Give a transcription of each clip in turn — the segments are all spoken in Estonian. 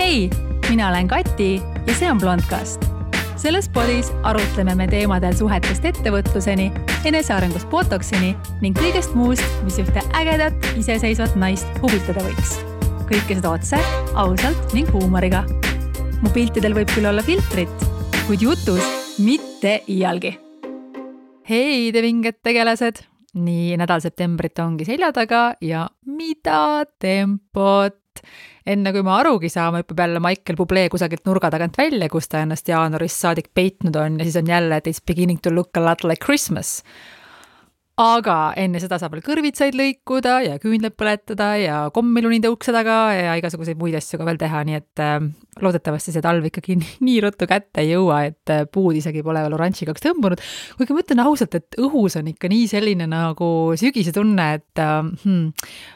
Hei, mina olen Kati ja see on Blondcast. Selles podis arutleme me teemadel suhetest ettevõtluseni, enesearengust botoksini ning kõigest muust, mis ühte ägedat, iseseisvat naist huvitada võiks. Kõike seda otse, ausalt ning huumoriga. Mu piltidel võib küll olla filtrit, kuid jutus mitte iialgi. Hei, te vinged tegelased! Nii nädal septembrit ongi selja taga ja mida tempot! Enne kui ma arugi saama, hüppab jälle Michael Bublé kusagilt nurga tagant välja, kus ta ennast jaanuarist saadik peitnud on ja siis on jälle, et it's beginning to look a lot like Christmas. Aga enne seda saab veel kõrvitsaid lõikuda ja küünled põletada ja kommilunide ukse taga ja igasuguseid muid asju ka veel teha, nii et loodetavasti see talv ikkagi nii ruttu kätte ei jõua, et puud isegi pole veel oranžikaks tõmbunud. Kuigi ma ütlen ausalt, et õhus on ikka nii selline nagu sügise tunne, et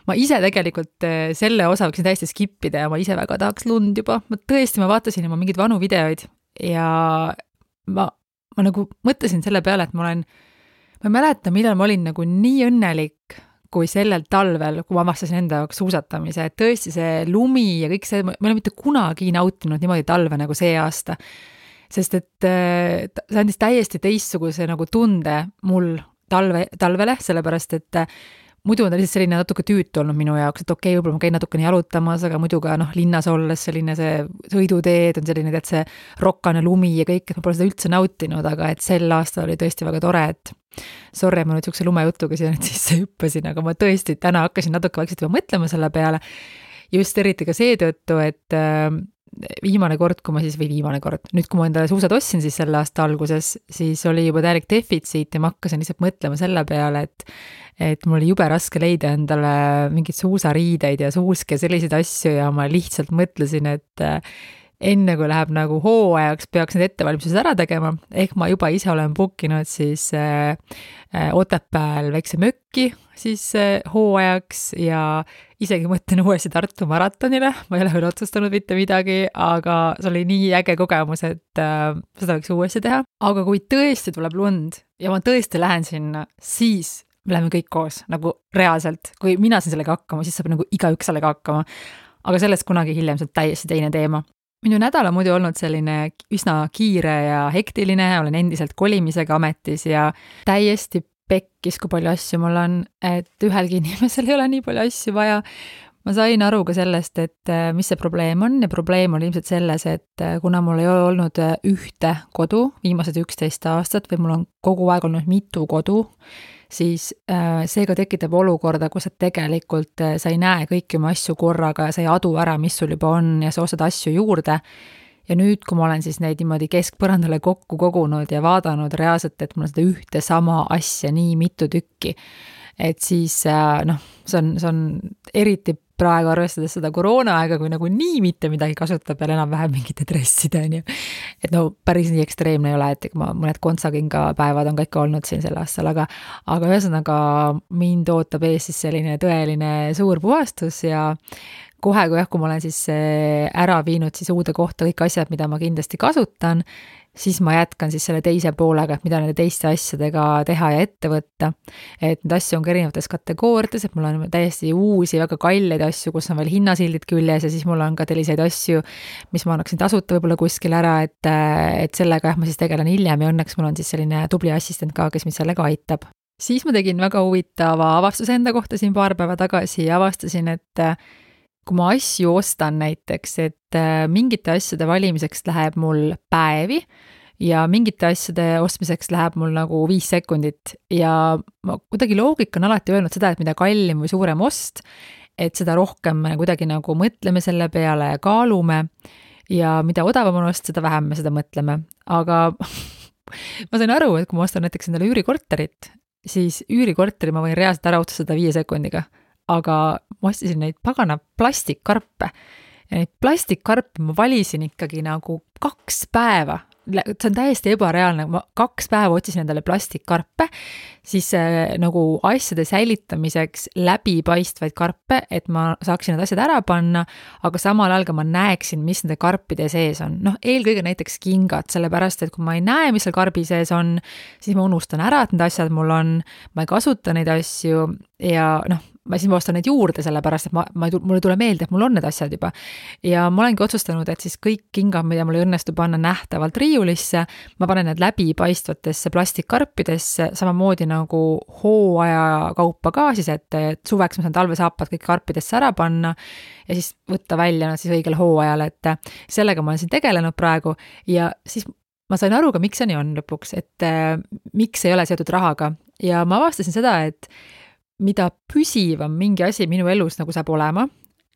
ma ise tegelikult selle osa võiksin täiesti skippida ja ma ise väga tahaks lund juba. Ma vaatasin juba mingeid vanu videoid ja ma nagu mõtlesin selle peale, et ma ei mäleta, millal ma olin nagu nii õnnelik kui sellel talvel, kui ma avastasin enda jaoks suusatamise, et tõesti see lumi ja kõik see, ma ei ole mitte kunagi nautinud niimoodi talve nagu see aasta, sest et see andis täiesti teistsuguse nagu tunde mul talvele, sellepärast et muidu on ta lihtsalt selline natuke tüütu olnud minu jaoks, et okei, võib-olla ma käin natukene jalutamas, aga muidu ka linnas olles selline see sõiduteed on selline, et see rokkane lumi ja kõik, et ma pole seda üldse nautinud, aga et sel aastal oli tõesti väga tore, et sorry, ma nüüd sihukese lumejutuga siia nüüd sisse hüppasin, aga ma tõesti täna hakkasin natuke vaikselt juba mõtlema selle peale, just eriti ka seetõttu, et viimane kord, nüüd kui ma endale suusad ostsin siis selle aasta alguses, siis oli juba täielik defitsiit ja ma hakkasin lihtsalt mõtlema selle peale, et mul oli jube raske leida endale mingid suusariideid ja suuske ja selliseid asju ja ma lihtsalt mõtlesin, et enne kui läheb nagu hooajaks, peaks need ettevalmistused ära tegema, ehk ma juba ise olen bookinud siis Otepääl väikse mökki siis hooajaks ja isegi mõtlen uuesti Tartu maratonile, ma ei ole veel otsustanud mitte midagi, aga see oli nii äge kogemus, et seda võiks uuesti teha. Aga kui tõesti tuleb lund ja ma tõesti lähen sinna, siis me läheme kõik koos, nagu reaalselt. Kui mina siin sellega hakkama, siis saab nagu igaüks sellega hakkama. Aga sellest kunagi hiljem see on täiesti teine teema. Minu nädal on muidu olnud selline üsna kiire ja hektiline, olen endiselt kolimisega ametis ja täiesti pekkis, kui palju asju mul on, et ühelgi inimesel ei ole nii palju asju vaja. Ma sain aru ka sellest, et mis see probleem on ja probleem on ilmselt selles, et kuna mul ei ole olnud ühte kodu viimased 11 aastat või mul on kogu aeg olnud mitu kodu, siis seega tekitab olukorda, kus tegelikult sa ei näe kõiki oma asju korraga ja sa ei adu ära, mis sul juba on ja sa ostad asju juurde. Ja nüüd, kui ma olen siis neid niimoodi keskpõrandale kokku kogunud ja vaadanud reaalselt, et mul on seda ühte sama asja nii mitu tükki, et siis see on eriti praegu arvestades seda koroonaaega, kui nagu nii mitte midagi kasutab ja enam-vähem mingite dresside on ju. Et päris nii ekstreemne ei ole, et ma mõned kontsakinga päevad on ka ikka olnud siin sel aastal, aga ühesõnaga mind ootab ees siis selline tõeline suur puhastus ja kohe, kui ma olen siis ära viinud siis uude kohta kõik asjad, mida ma kindlasti kasutan, siis ma jätkan siis selle teise poolega, et mida nende teiste asjadega teha ja ette võtta. Et need asju on ka erinevates kategooriates, et mul on täiesti uusi, väga kalleid asju, kus on veel hinnasildid küljes ja siis mul on ka selliseid asju, mis ma annaksin tasuta võib-olla kuskil ära, et sellega ma siis tegelen hiljem ja õnneks mul on siis selline tubli assistent ka, kes mind sellega aitab. Siis ma tegin väga huvitava avastuse enda kohta siin paar päeva tagasi ja avastasin, et kui ma asju ostan näiteks, et mingite asjade valimiseks läheb mul päevi ja mingite asjade ostmiseks läheb mul nagu 5 sekundit ja ma kuidagi loogika on alati öelnud seda, et mida kallim või suurem ost, et seda rohkem kuidagi nagu mõtleme selle peale ja kaalume ja mida odavam on ost, seda vähem me seda mõtleme. Aga ma sain aru, et kui ma ostan näiteks endale üürikorterit, siis üürikorteri ma võin reaalselt ära otsustada 5 sekundiga. Aga ma ostisin neid pagana plastikkarpe ja neid plastikkarpe ma valisin ikkagi nagu 2 päeva. See on täiesti ebareaalne, ma 2 päeva otsisin endale plastikkarpe, siis nagu asjade säilitamiseks läbipaistvaid karpe, et ma saaksin need asjad ära panna, aga samal ajal ka ma näeksin, mis nende karpide sees on. Eelkõige näiteks kingad, sellepärast, et kui ma ei näe, mis seal karbi sees on, siis ma unustan ära, et need asjad mul on, ma ei kasuta neid asju ja siis ma ostan neid juurde, sellepärast, et mulle tule meelde, et mul on need asjad juba. Ja ma olengi otsustanud, et siis kõik kingad, mida mul ei õnnestu panna nähtavalt riiulisse, ma panen need läbipaistvatesse plastikkarpidesse, samamoodi nagu hooaja kaupa ka siis, et suveks ma saan talvesaapad kõik karpidesse ära panna ja siis võtta välja nad siis õigel hooajal, et sellega ma olen siin tegelenud praegu ja siis ma sain aru ka, miks see nii on lõpuks, et miks ei ole seotud rahaga ja ma avastasin seda, et mida püsivam mingi asi minu elus nagu saab olema,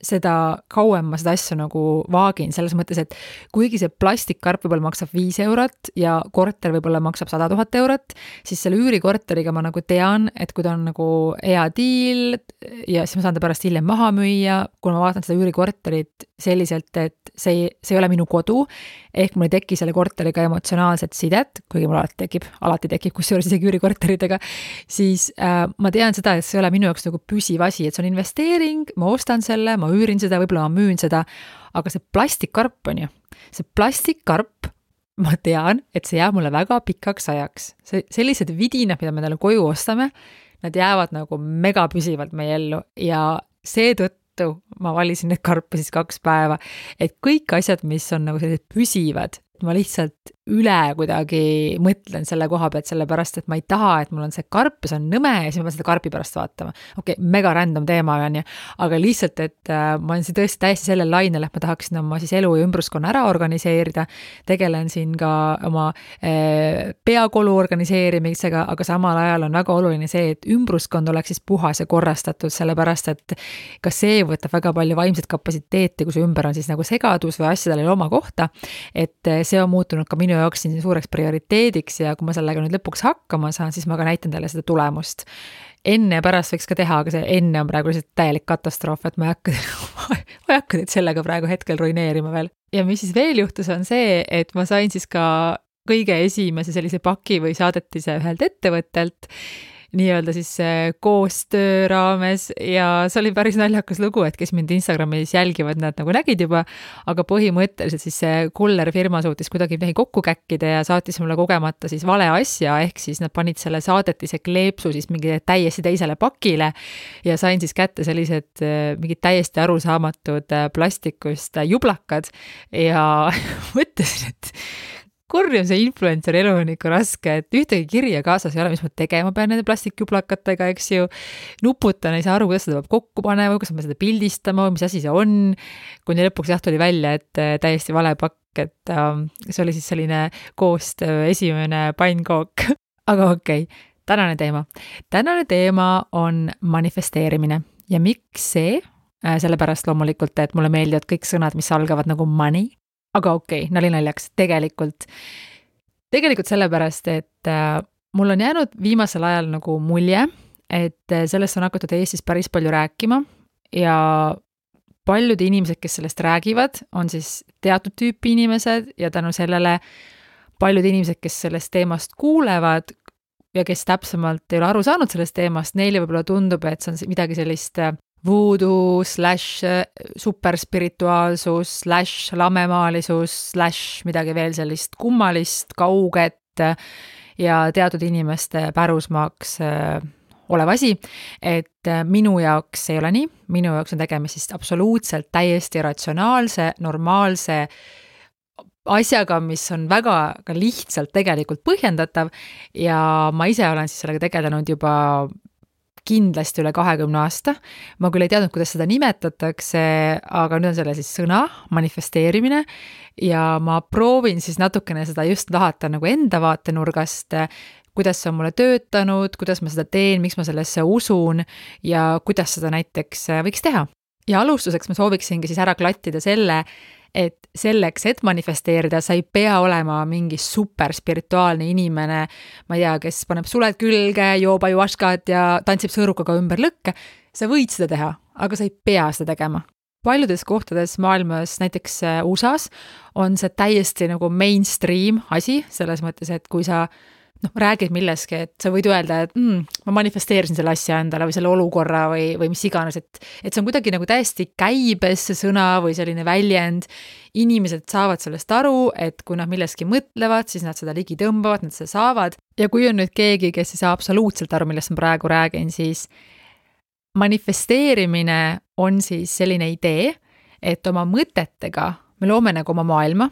seda kauem ma seda asja nagu vaagin, selles mõttes, et kuigi see plastikkarp võib-olla maksab 5 eurot ja korter võib-olla maksab 100 000 eurot, siis selle üürikorteriga ma nagu tean, et kui ta on nagu hea diil ja siis ma saan ta pärast hiljem maha müüa, kuna ma vaatan seda üürikorterit selliselt, et see ei ole minu kodu, ehk mul ei teki selle korteriga emotsionaalset sidet, kuigi mul alati tekib kusjuures isegi üürikorteritega, siis ma tean seda, et see ei ole minu jaoks nagu püsiv asi, et see on investeering, ma ostan selle, ma üürin seda, võib-olla ma müün seda, aga see plastikkarp on ju, see plastikkarp, ma tean, et see jääb mulle väga pikaks ajaks. Sellised vidinad, mida me talle koju ostame, nad jäävad nagu mega püsivalt meie ellu ja seetõttu ma valisin need karpe siis 2 päeva, et kõik asjad, mis on nagu sellised püsivad, ma lihtsalt üle kuidagi mõtlen selle koha pealt, sellepärast, et ma ei taha, et mul on see karp ja see on nõme ja siis ma pean seda karpi pärast vaatama. Okei, mega random teema on ju, aga lihtsalt, et ma olen tõesti täiesti sellel lainel, et ma tahaksin oma siis elu ja ümbruskonna ära organiseerida, tegelen siin ka oma peakolu organiseerimisega, aga samal ajal on väga oluline see, et ümbruskond oleks siis puhas ja korrastatud, sellepärast, et ka see võtab väga palju vaimset kapatsiteeti, kui see ümber on siis nagu segadus või asjadel ei ole oma kohta, et see on muutunud ka minu jaoks siin suureks prioriteediks ja kui ma sellega nüüd lõpuks hakkama saan, siis ma ka näitan teile seda tulemust. Enne ja pärast võiks ka teha, aga see enne on praegu lihtsalt täielik katastroof, et ma ei hakka teid sellega praegu hetkel ruineerima veel. Ja mis siis veel juhtus on see, et ma sain siis ka kõige esimese sellise paki või saadetise ühelt ettevõttelt, nii-öelda siis koostöö raames ja see oli päris naljakas lugu, et kes mind Instagramis jälgivad, nad nagu nägid juba, aga põhimõtteliselt siis see kuller firma suutis kuidagi midagi kokku käkkida ja saatis mulle kogemata siis vale asja, ehk siis nad panid selle saadetise kleepsu siis mingi täiesti teisele pakile ja sain siis kätte sellised mingid täiesti arusaamatud plastikust jublakad ja mõtlesin, et kurjum see influencer elu on ikka raske, et ühtegi kirja kaasas ei ole, mis ma tegema pean nende plastikjublakatega, eks ju. Nuputan, ei saa aru, kuidas seda peab kokku panema, kas ma seda pildistama, mis asi see on. Kuni lõpuks tuli välja, et täiesti vale pakk, et see oli siis selline koostöö esimene pannkook. Aga okei, tänane teema. Tänane teema on manifesteerimine ja miks see? Sellepärast loomulikult, et mulle meeldivad kõik sõnad, mis algavad nagu money. Aga okei, nali naljaks, tegelikult sellepärast, et mul on jäänud viimasel ajal nagu mulje, et sellest on hakatud Eestis päris palju rääkima ja paljud inimesed, kes sellest räägivad, on siis teatud tüüpi inimesed ja tänu sellele paljud inimesed, kes sellest teemast kuulevad ja kes täpsemalt ei ole aru saanud sellest teemast, neile võib-olla tundub, et see on midagi sellist voodoo / superspirituaalsus / lamemaalisus / midagi veel sellist kummalist, kauget ja teatud inimeste pärusmaaks olev asi, et minu jaoks ei ole nii, minu jaoks on tegemist siis absoluutselt täiesti ratsionaalse, normaalse asjaga, mis on väga ka lihtsalt tegelikult põhjendatav ja ma ise olen siis sellega tegelenud juba kindlasti üle 20 aasta. Ma küll ei teadnud, kuidas seda nimetatakse, aga nüüd on selle siis sõna, manifesteerimine ja ma proovin siis natukene seda just lahata nagu enda vaatenurgast, kuidas see on mulle töötanud, kuidas ma seda teen, miks ma sellesse usun ja kuidas seda näiteks võiks teha. Ja alustuseks ma sooviksingi siis ära klattida selle, et selleks, et manifesteerida, sa ei pea olema mingi super spirituaalne inimene, ma ei tea, kes paneb suled külge, joob ajuaškat ja tantsib sõõrukaga ümber lõkke. Sa võid seda teha, aga sa ei pea seda tegema. Paljudes kohtades maailmas, näiteks USAs, on see täiesti nagu mainstream asi, selles mõttes, et kui sa räägid milleski, et sa võid öelda, et ma manifesteerisin selle asja endale või selle olukorra või mis iganes, et see on kuidagi nagu täiesti käibes see sõna või selline väljend. Inimesed saavad sellest aru, et kui nad milleski mõtlevad, siis nad seda ligi tõmbavad, nad seda saavad. Ja kui on nüüd keegi, kes ei saa absoluutselt aru, millest ma praegu räägin, siis manifesteerimine on siis selline idee, et oma mõtetega me loome nagu oma maailma,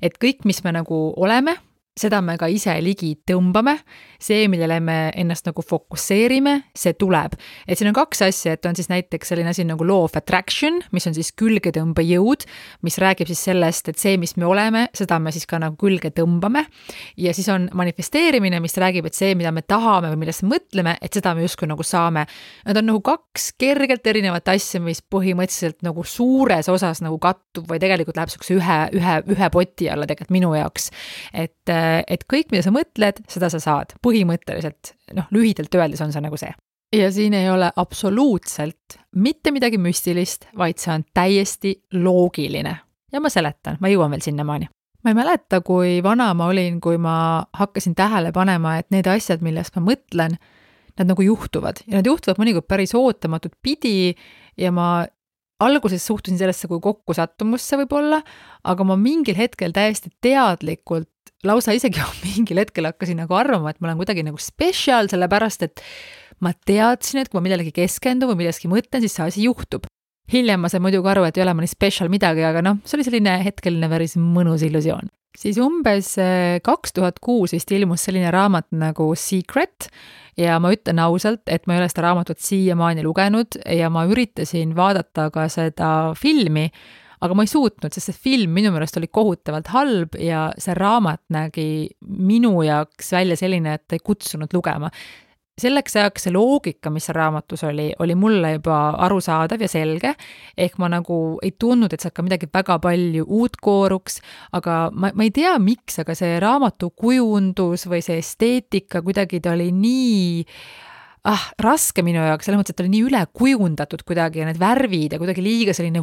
et kõik, mis me nagu oleme, seda me ka ise ligi tõmbame, see, millele me ennast nagu fokusseerime, see tuleb. Et siin on kaks asja, et on siis näiteks selline asi nagu law of attraction, mis on siis külgetõmbejõud, mis räägib siis sellest, et see, mis me oleme, seda me siis ka nagu külge tõmbame. Ja siis on manifesteerimine, mis räägib, et see, mida me tahame või millest mõtleme, et seda me justkui nagu saame. Nad on nagu kaks kergelt erinevat asja, mis põhimõtteliselt nagu suures osas nagu kattub või tegelikult läheb sellise ühe poti alla tegelikult minu jaoks. Et kõik, mida sa mõtled, seda sa saad. Põhimõtteliselt, lühidalt öeldes on see nagu see. Ja siin ei ole absoluutselt mitte midagi müstilist, vaid see on täiesti loogiline. Ja ma seletan, ma jõuan veel sinnamaani. Ma ei mäleta, kui vana ma olin, kui ma hakkasin tähele panema, et need asjad, millest ma mõtlen, nad nagu juhtuvad. Ja nad juhtuvad mõnikord päris ootamatut pidi ja ma alguses suhtusin sellesse kui kokkusattumusse võib-olla, aga ma mingil hetkel täiesti teadlikult, lausa isegi mingil hetkel hakkasin nagu arvama, et ma olen kuidagi nagu special, sellepärast et ma teadsin, et kui ma midagi keskendun või midagi mõtlen, siis see asi juhtub. Hiljem ma sain muidugi aru, et ei ole ma nii special midagi, aga see oli selline hetkeline päris mõnus illusioon. Siis umbes 2006 vist ilmus selline raamat nagu Secret ja ma ütlen ausalt, et ma ei ole seda raamatut siiamaani lugenud ja ma üritasin vaadata ka seda filmi, aga ma ei suutnud, sest see film minu meelest oli kohutavalt halb ja see raamat nägi minu jaoks välja selline, et ei kutsunud lugema. Selleks ajaks see loogika, mis raamatus oli mulle juba arusaadav ja selge, ehk ma nagu ei tundnud, et sealt ka midagi väga palju uut kooruks, aga ma ei tea miks, aga see raamatu kujundus või see esteetika kuidagi ta oli nii raske minu jaoks, selles mõttes, et ta oli nii üle kujundatud kuidagi ja need värvid ja kuidagi liiga selline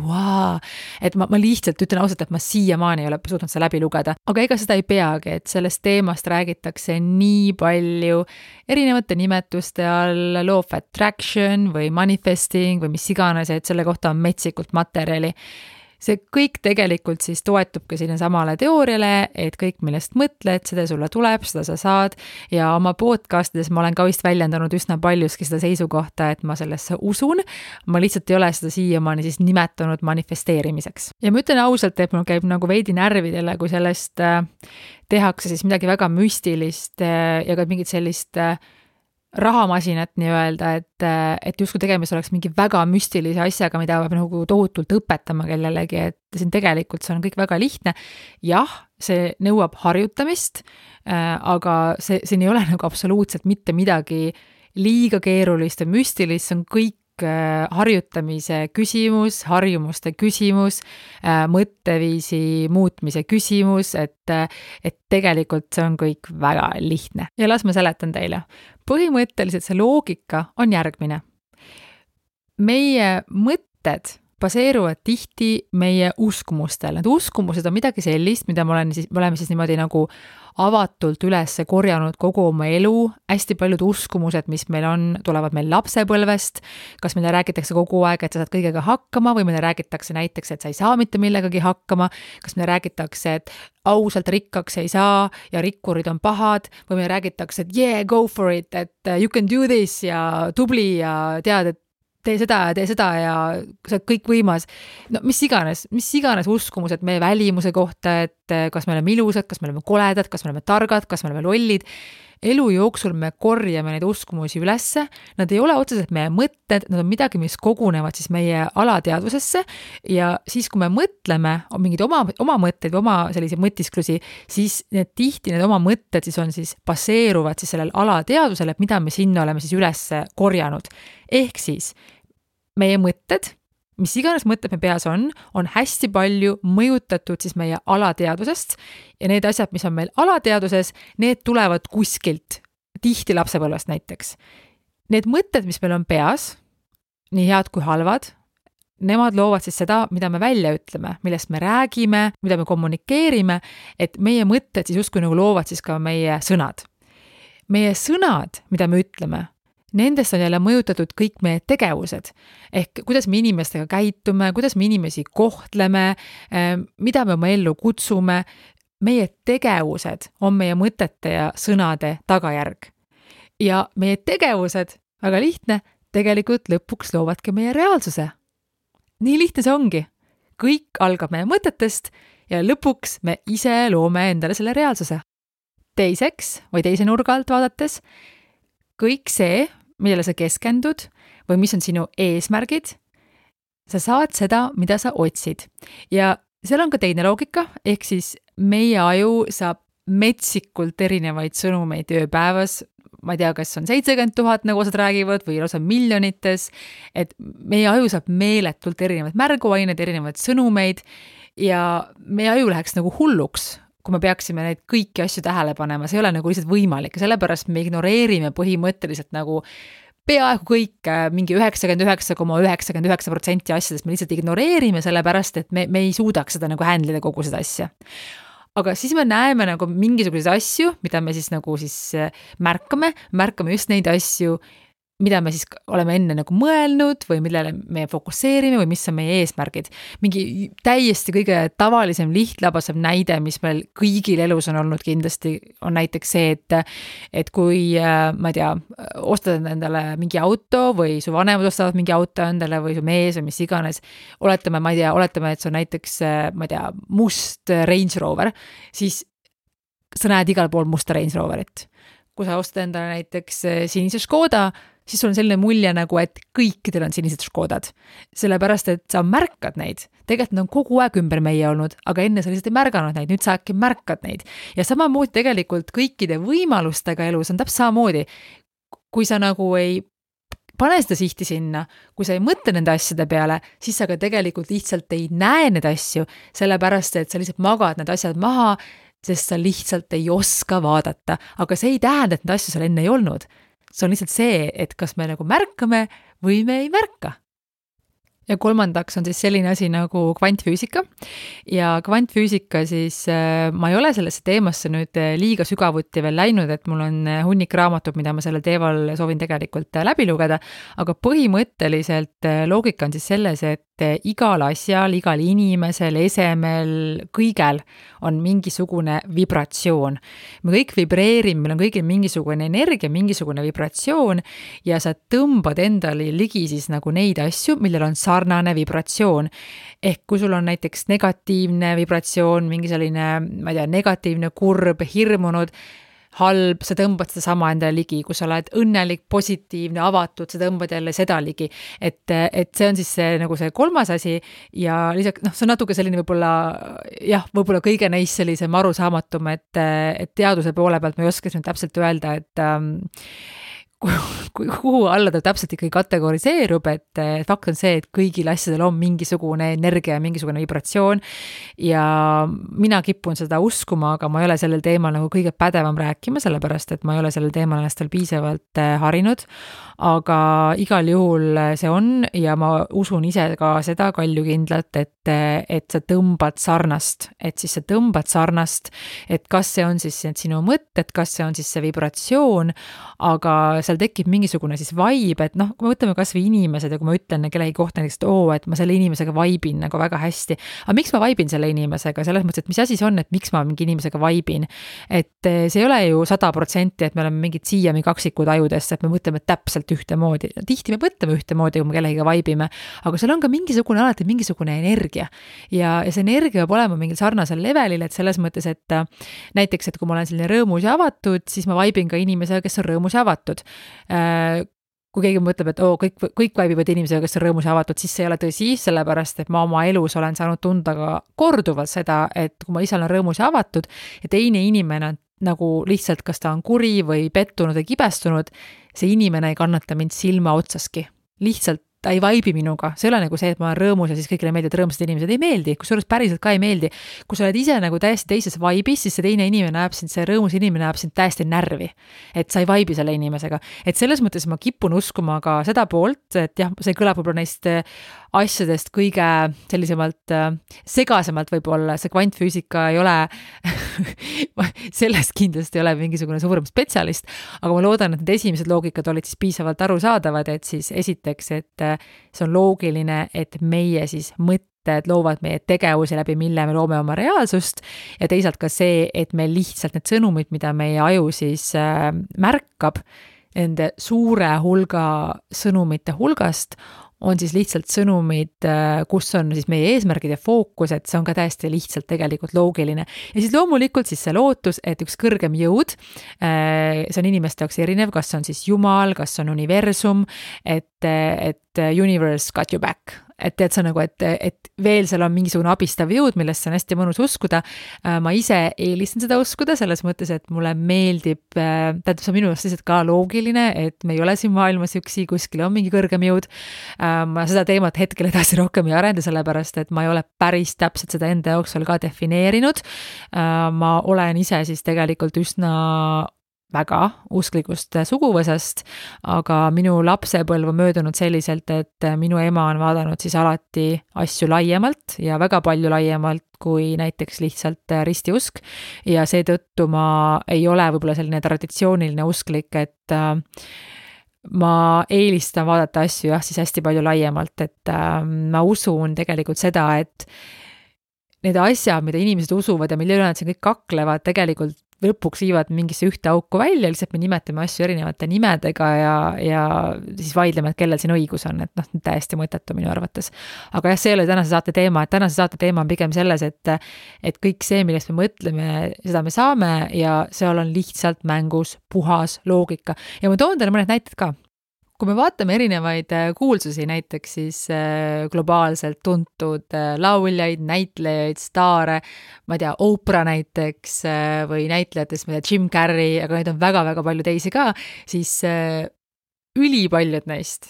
et ma lihtsalt ütlen ausalt, et ma siiamaani ei ole suutnud seda läbi lugeda. Aga ega seda ei peagi, et sellest teemast räägitakse nii palju erinevate nimetuste all, law of attraction või manifesting või mis iganes, et selle kohta on metsikult materjali. See kõik tegelikult siis toetubki sinna samale teooriale, et kõik, millest mõtled, seda sulle tuleb, seda sa saad ja oma podcastides ma olen ka vist väljendanud üsna paljuski seda seisukohta, et ma sellesse usun, ma lihtsalt ei ole seda siiamaani siis nimetanud manifesteerimiseks. Ja ma ütlen ausalt, et mul käib nagu veidi närvidele, kui sellest tehakse siis midagi väga müstilist ja ka mingit sellist rahamasinat nii-öelda, et justkui tegemist oleks mingi väga müstilise asjaga, mida peab nagu tohutult õpetama kellelegi, et siin tegelikult see on kõik väga lihtne. Jah, see nõuab harjutamist, aga siin ei ole nagu absoluutselt mitte midagi liiga keerulist ja müstilist, see on kõik harjutamise küsimus, harjumuste küsimus, mõtteviisi muutmise küsimus, et tegelikult see on kõik väga lihtne. Ja las ma seletan teile. Põhimõtteliselt see loogika on järgmine. Meie mõtted baseeruvad tihti meie uskumustel. Need uskumused on midagi sellist, mida me oleme siis niimoodi nagu avatult üles korjanud kogu oma elu. Hästi paljud uskumused, mis meil on, tulevad meil lapsepõlvest. Kas meile räägitakse kogu aeg, et sa saad kõigega hakkama või meile räägitakse näiteks, et sa ei saa mitte millegagi hakkama. Kas meile räägitakse, et ausalt rikkaks ei saa ja rikkurid on pahad või meile räägitakse, et yeah, go for it, et you can do this ja tubli ja tead, et tee seda ja sa oled kõik võimas. Mis iganes uskumused meie välimuse kohta, et kas me oleme ilusad, kas me oleme koledad, kas me oleme targad, kas me oleme lollid. Elu jooksul me korjame neid uskumusi ülesse. Nad ei ole otseselt meie mõtted, nad on midagi, mis kogunevad siis meie alateadvusesse ja siis, kui me mõtleme mingid oma mõtteid või oma sellise mõtisklusi, siis tihti need oma mõtted siis on siis baseeruvad siis sellel alateadvusele, mida me sinna oleme siis üles korjanud. Ehk siis meie mõtted, mis iganes mõtted me peas on hästi palju mõjutatud siis meie alateadvusest ja need asjad, mis on meil alateadvuses, need tulevad kuskilt, tihti lapsepõlvest näiteks. Need mõtted, mis meil on peas, nii head kui halvad, nemad loovad siis seda, mida me välja ütleme, millest me räägime, mida me kommunikeerime, et meie mõtted siis justkui nagu loovad siis ka meie sõnad. Meie sõnad, mida me ütleme, nendest on jälle mõjutatud kõik meie tegevused, ehk kuidas me inimestega käitume, kuidas me inimesi kohtleme, mida me oma ellu kutsume. Meie tegevused on meie mõtete ja sõnade tagajärg. Ja meie tegevused, väga lihtne, tegelikult lõpuks loovadki meie reaalsuse. Nii lihtne see ongi. Kõik algab meie mõtetest ja lõpuks me ise loome endale selle reaalsuse. Teiseks või teise nurga alt vaadates, kõik see, millele sa keskendud või mis on sinu eesmärgid, sa saad seda, mida sa otsid. Ja seal on ka teine loogika, ehk siis meie aju saab metsikult erinevaid sõnumeid ööpäevas. Ma ei tea, kas on 70 000, nagu osad räägivad, või lausa miljonites, et meie aju saab meeletult erinevaid märguaineid, erinevaid sõnumeid ja meie aju läheks nagu hulluks, kui me peaksime neid kõiki asju tähele panema. See ei ole nagu lihtsalt võimalik ja sellepärast me ignoreerime põhimõtteliselt nagu peaaegu kõik, mingi 99,99% asjadest me lihtsalt ignoreerime sellepärast, et me ei suudaks seda nagu handlida kogu seda asja. Aga siis me näeme nagu mingisuguseid asju, mida me siis nagu märkame just neid asju, mida me siis oleme enne nagu mõelnud või millele me fokusseerime või mis on meie eesmärgid. Mingi täiesti kõige tavalisem lihtlabasem näide, mis meil kõigil elus on olnud kindlasti, on näiteks see, et kui, ma ei tea, ostad endale mingi auto või su vanemad ostavad mingi auto endale või su mees või mis iganes, oletame, et see on näiteks, ma ei tea, must Range Rover, siis sa näed igal pool musta Range Roverit. Kui sa ostad endale näiteks sinise Škoda, siis sul on selline mulje nagu, et kõikidel on sinised Škodad. Sellepärast, et sa märkad neid. Tegelikult nad on kogu aeg ümber meie olnud, aga enne sa lihtsalt ei märganud neid, nüüd sa äkki märkad neid. Ja samamoodi tegelikult kõikide võimalustega elus on täpselt samamoodi. Kui sa nagu ei pane seda sihti sinna, kui sa ei mõtle nende asjade peale, siis sa ka tegelikult lihtsalt ei näe need asju, sellepärast, et sa lihtsalt magad need asjad maha, sest sa lihtsalt ei oska vaadata. Aga see ei tähenda, et need asju seal enne ei olnud. See on lihtsalt see, et kas me nagu märkame või me ei märka. Ja kolmandaks on siis selline asi nagu kvantfüüsika. Ja kvantfüüsika siis, ma ei ole sellesse teemasse nüüd liiga sügavuti veel läinud, et mul on hunnik raamatut, mida ma sellel teemal soovin tegelikult läbi lugeda, aga põhimõtteliselt loogika on siis selles, et igal asjal, igal inimesel, esemel, kõigel on mingisugune vibratsioon. Me kõik vibreerime, meil on kõigil mingisugune energia, mingisugune vibratsioon ja sa tõmbad endale ligi siis nagu neid asju, millel on sarnane vibratsioon. Ehk kui sul on näiteks negatiivne vibratsioon, mingi selline, ma ei tea, negatiivne, kurb, hirmunud, halb, sa tõmbad seda sama endale ligi, kui sa oled õnnelik, positiivne, avatud, sa tõmbad jälle seda ligi. Et see on siis see, nagu see kolmas asi ja lisaks, see on natuke selline võib-olla kõige neist sellisem arusaamatum, et teaduse poole pealt ma ei oska täpselt öelda, et kuhu alla ta täpselt ikkagi kategoriseerub, et fakt on see, et kõigil asjadel on mingisugune energia ja mingisugune vibratsioon ja mina kipun seda uskuma, aga ma ei ole sellel teemal nagu kõige pädevam rääkima, sellepärast, et ma ei ole sellel teemal ennast veel piisavalt harinud, aga igal juhul see on ja ma usun ise ka seda kaljukindlalt, et sa tõmbad sarnast, et kas see on siis sinu mõtted, kas see on siis see vibratsioon, aga seal tekib mingisugune siis vibe, et kui me võtame kas või inimesed ja kui ma ütlen kellegi kohta näiteks, et ma selle inimesega vaibin nagu väga hästi, aga miks ma vaibin selle inimesega, selles mõttes, et mis asi see on, et miks ma mingi inimesega vaibin, et see ei ole ju 100%, et me oleme mingid siiami kaksikud ajudesse, et me mõtleme täpselt ühtemoodi, tihti me mõtleme ühtemoodi, kui me kellegiga vaibime, aga seal on ka alati mingisugune energia ja see energia peab olema mingil sarnasel levelil, et selles mõttes, et näiteks, et kui ma olen selline rõõmus ja avatud, siis ma vaibin ka inimesega, kes on rõõmus ja avatud. Kui keegi mõtleb, et kõik vaibivad inimesega, kes on rõõmus ja avatud, siis see ei ole tõsi, sellepärast, et ma oma elus olen saanud tunda ka korduvalt seda, et kui ma ise olen rõõmus ja avatud ja teine inimene nagu lihtsalt, kas ta on kuri või pettunud või kibestunud, see inimene ei kannata mind silma otsaski. Lihtsalt ta ei vaibi minuga, see ei ole nagu see, et ma olen rõõmus ja siis kõigile meeldib, et rõõmsad inimesed ei meeldi, kusjuures päriselt ka ei meeldi. Kui sa oled ise nagu täiesti teises vaibis, siis see teine inimene näeb sind, see rõõmus inimene näeb sind täiesti närvi, et sa ei vaibi selle inimesega. Et selles mõttes ma kipun uskuma ka seda poolt, et jah, see kõlab võib-olla neist asjadest kõige sellisemalt segasemalt võib-olla, see kvantfüüsika ei ole sellest kindlasti ei ole mingisugune suurem spetsialist, aga ma loodan, et need esimesed loogikad olid siis piisavalt arusaadavad, et siis esiteks, et see on loogiline, et meie siis mõtted loovad meie tegevusi läbi, mille me loome oma reaalsust ja teisalt ka see, et meil lihtsalt need sõnumid, mida meie aju siis märkab, nende suure hulga sõnumite hulgast on siis lihtsalt sõnumid, kus on siis meie eesmärgid ja fookus, et see on ka täiesti lihtsalt tegelikult loogiline. Ja siis loomulikult siis see lootus, et üks kõrgem jõud, see on inimeste jaoks erinev, kas on siis Jumal, kas on universum, et universe got you back. Et tead sa nagu, et veel seal on mingisugune abistav jõud, millest on hästi mõnus uskuda. Ma ise eelistan seda uskuda selles mõttes, et mulle meeldib, tähendab see minu jaoks lihtsalt ka loogiline, et me ei ole siin maailmas üksi, kuskil on mingi kõrgem jõud. Ma seda teemat hetkel edasi rohkem ei arenda, sellepärast, et ma ei ole päris täpselt seda enda jooksul ka defineerinud. Ma olen ise siis tegelikult üsna väga usklikust suguvõsast, aga minu lapsepõlv on möödunud selliselt, et minu ema on vaadanud siis alati asju laiemalt ja väga palju laiemalt kui näiteks lihtsalt ristiusk ja seetõttu ma ei ole võib-olla selline traditsiooniline usklik, et ma eelistan vaadata asju siis hästi palju laiemalt, et ma usun tegelikult seda, et need asjad, mida inimesed usuvad ja mille üle nad siin kõik kaklevad, tegelikult lõpuks viivad mingisse ühte auku välja, lihtsalt me nimetame asju erinevate nimedega ja siis vaidleme, et kellel siin õigus on, et täiesti mõttetu minu arvates. Aga see ei ole tänase saate teema, et tänase saate teema on pigem selles, et kõik see, millest me mõtleme, seda me saame ja seal on lihtsalt mängus puhas loogika. Ja ma toon teile mõned näited ka. Kui me vaatame erinevaid kuulsusi, näiteks siis globaalselt tuntud lauljaid, näitlejaid, staare, ma ei tea, Oprah näiteks või näitlejatest, ma ei tea, Jim Carrey, aga neid on väga-väga palju teisi ka, siis ülipaljud neist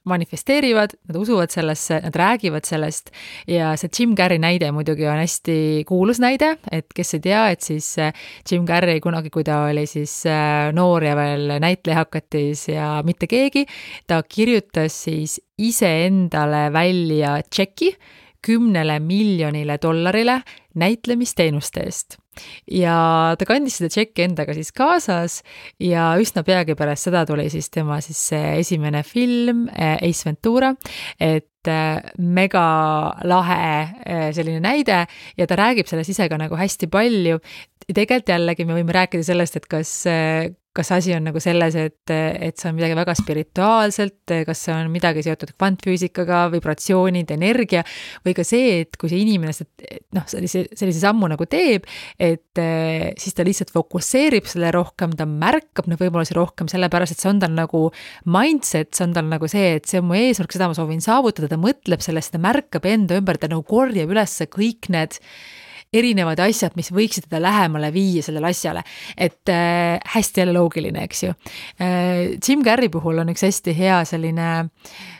manifesteerivad, nad usuvad sellesse, nad räägivad sellest ja see Jim Carrey näide muidugi on hästi kuulus näide, et kes ei tea, et siis Jim Carrey kunagi, kui ta oli siis noor ja veel näitleja hakatis ja mitte keegi, ta kirjutas siis iseendale välja tšeki $10 miljonile näitlemisteenuste eest. Ja ta kandis seda tšekki endaga siis kaasas ja üsna peagi pärast seda tuli siis tema siis esimene film Ace Ventura, et mega lahe selline näide ja ta räägib sellest ise ka nagu hästi palju. Tegelikult jällegi me võime rääkida sellest, et kas asi on nagu selles, et see on midagi väga spirituaalselt, kas see on midagi seotud kvantfüüsikaga, vibratsioonid, energia või ka see, et kui see inimene sellise sammu nagu teeb, et siis ta lihtsalt fokusseerib selle rohkem, ta märkab neid võimalusi rohkem, sellepärast, et see on tal nagu mindset, see on tal nagu see, et see on mu eesmärk, seda ma soovin saavutada, ta mõtleb sellest, ta märkab enda ümber, ta nagu korjab üles kõik need erinevad asjad, mis võiksid teda lähemale viia sellele asjale, et hästi jälle loogiline, eks ju. Jim Carrey puhul on üks hästi hea selline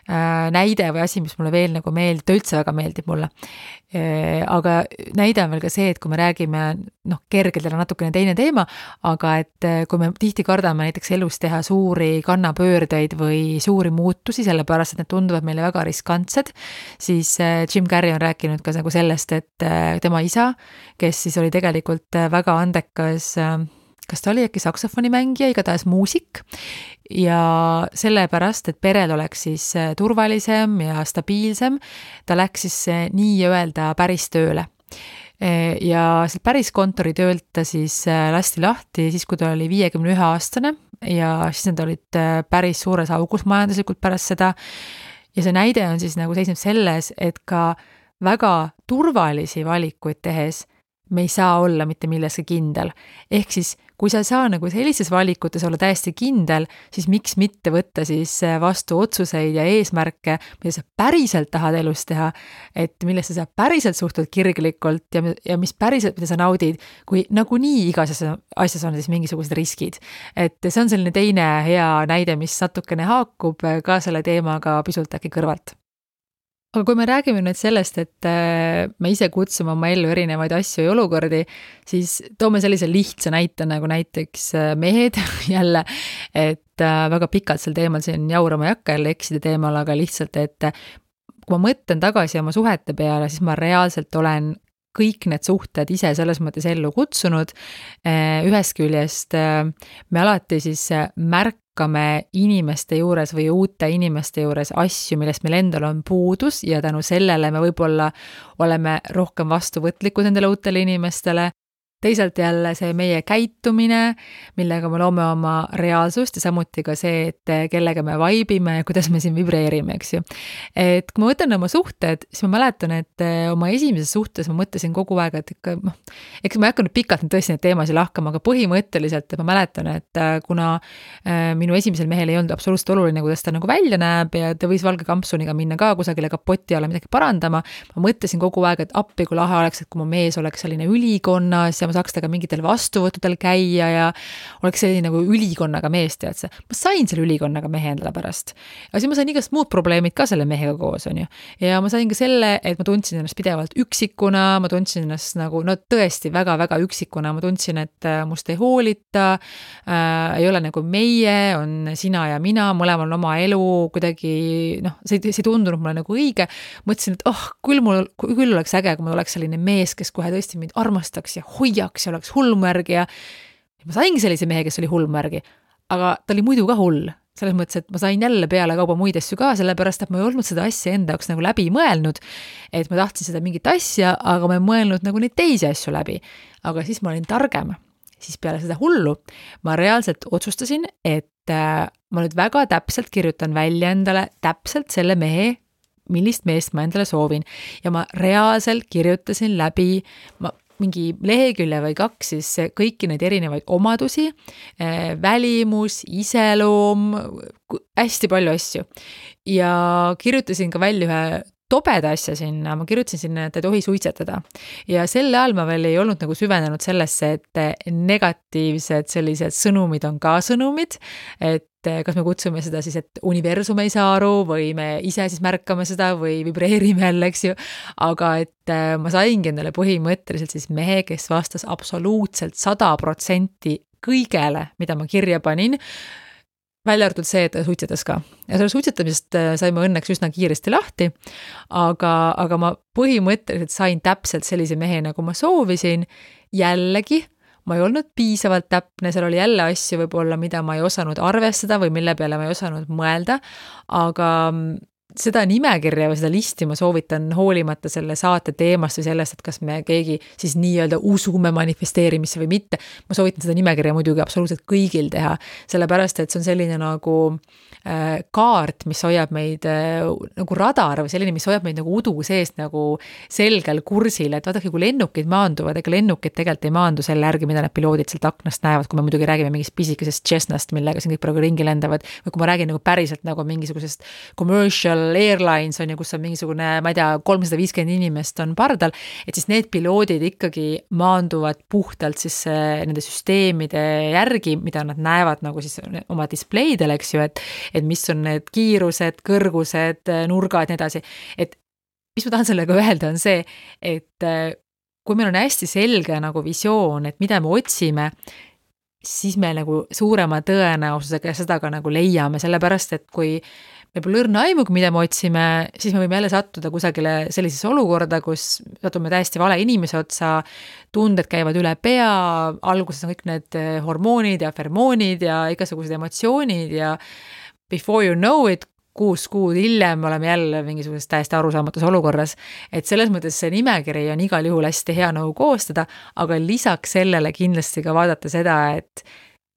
näide või asi, mis mulle veel nagu meeldib, ta üldse väga meeldib mulle. Aga näide on veel ka see, et kui me räägime, kergelt on natukene teine teema, aga et kui me tihti kardame näiteks elus teha suuri kannapöördeid või suuri muutusi, sellepärast, et need tunduvad meile väga riskantsed, siis Jim Carrey on rääkinud ka nagu sellest, et tema isa, kes siis oli tegelikult väga andekas, kas ta oli äkki saksofonimängija, igatahes muusik ja sellepärast, et perel oleks siis turvalisem ja stabiilsem, ta läks siis nii-öelda päris tööle. Ja päris kontoritöölt ta siis lasti lahti siis, kui ta oli 51-aastane ja siis nad olid päris suures augus majanduslikult pärast seda. Ja see näide on siis nagu seisneb selles, et ka väga turvalisi valikuid tehes me ei saa olla mitte milleski kindel. Ehk siis, kui sa ei saa nagu sellises valikutes olla täiesti kindel, siis miks mitte võtta siis vastu otsuseid ja eesmärke, mida sa päriselt tahad elus teha, et millesse sa päriselt suhtud kirglikult ja mis päriselt, mida sa naudid, kui nagunii igas asjas on siis mingisugused riskid. Et see on selline teine hea näide, mis natukene haakub ka selle teemaga pisut äkki kõrvalt. Aga kui me räägime nüüd sellest, et me ise kutsume oma ellu erinevaid asju ja olukordi, siis toome sellise lihtsa näite nagu näiteks mehed jälle, et väga pikalt sel teemal siin jaurama ei hakka jälle eksida teemal, aga lihtsalt, et kui ma mõtlen tagasi oma suhete peale, siis ma reaalselt olen kõik need suhted ise selles mõttes ellu kutsunud. Ühest küljest me alati siis märkame inimeste juures või uute inimeste juures asju, millest meil endal on puudus ja tänu sellele me võib-olla oleme rohkem vastuvõtlikud nendele uutele inimestele. teisalt jälle see meie käitumine, millega me loome oma reaalsust ja samuti ka see, et kellega me vaibime ja kuidas me siin vibreerime, eks ju. Et kui ma võtan oma suhted, siis ma mäletan, et oma esimeses suhtes ma mõtlesin kogu aeg, et ikka, eks ma ei hakanud pikalt tõesti neid teemasid lahkama, aga põhimõtteliselt ma mäletan, et kuna minu esimesel mehel ei olnud absoluutselt oluline, kuidas ta nagu välja näeb ja ta võis valge kampsuniga minna ka kusagile kapoti alla midagi parandama, ma mõtlesin kogu aeg, et appi kui lahe oleks, et kui mu mees oleks selline ülikonnas ja ma saaks temaga mingitel vastuvõttudel käia ja oleks selline nagu ülikonnaga mees, tead see. Ma sain selle ülikonnaga mehe endale pärast. Aga siis ma sain igast muud probleemid ka selle mehega koos, on ju. Ja ma sain ka selle, et ma tundsin ennast pidevalt üksikuna, ma tundsin ennast nagu, no tõesti väga-väga üksikuna, ma tundsin, et must ei hoolita, ei ole nagu meie, on sina ja mina, mõlemal on oma elu, kuidagi, noh, see ei tundunud mulle nagu õige. Mõtlesin, et küll oleks äge, kui mul oleks selline mees, kes kohe tõesti mind armastaks ja hoiaks ja oleks hullmärgi ja ma saingi sellise mehe, kes oli hullmärgi, aga ta oli muidu ka hull. Selles mõttes, et ma sain jälle peale kauba muid asju ka, sellepärast, et ma ei olnud seda asja enda jaoks nagu läbi mõelnud, et ma tahtsin seda mingit asja, aga ma ei mõelnud nagu neid teisi asju läbi. Aga siis ma olin targem. Siis peale seda hullu ma reaalselt otsustasin, et ma nüüd väga täpselt kirjutan välja endale täpselt selle mehe, millist meest ma endale soovin. Ja ma reaalselt kirjutasin läbi mingi lehekülje või 2 siis kõiki neid erinevaid omadusi, välimus, iseloom, hästi palju asju. Ja kirjutasin ka välja ühe tobeda asja sinna, ma kirjutasin sinna, et ei tohi suitsetada. Ja selle ajal ma veel ei olnud nagu süvenenud sellesse, et negatiivsed sellised sõnumid on ka sõnumid, et kas me kutsume seda siis, et universum ei saa aru või me ise siis märkame seda või vibreerime jälle, eks ju. Aga et ma saingi endale põhimõtteliselt siis mehe, kes vastas absoluutselt 100% kõigele, mida ma kirja panin, välja arvatud see, et ta suitsetas ka. Ja selle suitsetamisest saime õnneks üsna kiiresti lahti, aga ma põhimõtteliselt sain täpselt sellise mehe, nagu ma soovisin, jällegi ma ei olnud piisavalt täpne, seal oli jälle asju võib-olla, mida ma ei osanud arvestada või mille peale ma ei osanud mõelda, aga seda nimekirja või seda listi ma soovitan hoolimata selle saate teemast või sellest, et kas me keegi siis nii-öelda usume manifesteerimisse või mitte. Ma soovitan seda nimekirja muidugi absoluutselt kõigil teha, sellepärast, et see on selline nagu kaart, mis hoiab meid nagu radar või selline, mis hoiab meid nagu udu seest nagu selgel kursil, et vaadake, kui lennukid maanduvad, ega lennukid tegelikult ei maandu selle järgi, mida need piloodid sealt aknast näevad, kui me muidugi räägime mingist pisikesest Cessnast, millega siin kõik praegu ringi lendavad, või kui ma räägin nagu päriselt nagu mingisugusest commercial airlines on ju, kus on mingisugune, ma ei tea, 350 inimest on pardal, et siis need piloodid ikkagi maanduvad puhtalt siis nende süsteemide järgi, mida nad näevad nagu siis oma displeidel, eks ju, et mis on need kiirused, kõrgused, nurgad, nii edasi. Et mis ma tahan sellega öelda on see, et kui meil on hästi selge nagu visioon, et mida me otsime, siis me nagu suurema tõenäosusega seda ka nagu leiame, sellepärast, et kui me pole õrna aimugi, mida me otsime, siis me võime jälle sattuda kusagile sellisesse olukorda, kus satume täiesti vale inimese otsa, tunded käivad üle pea, alguses on kõik need hormoonid ja fermoonid ja igasugused emotsioonid ja before you know it, 6 kuud hiljem oleme jälle mingisuguses täiesti arusaamatus olukorras, et selles mõttes see nimekiri on igal juhul hästi hea nagu koostada, aga lisaks sellele kindlasti ka vaadata seda, et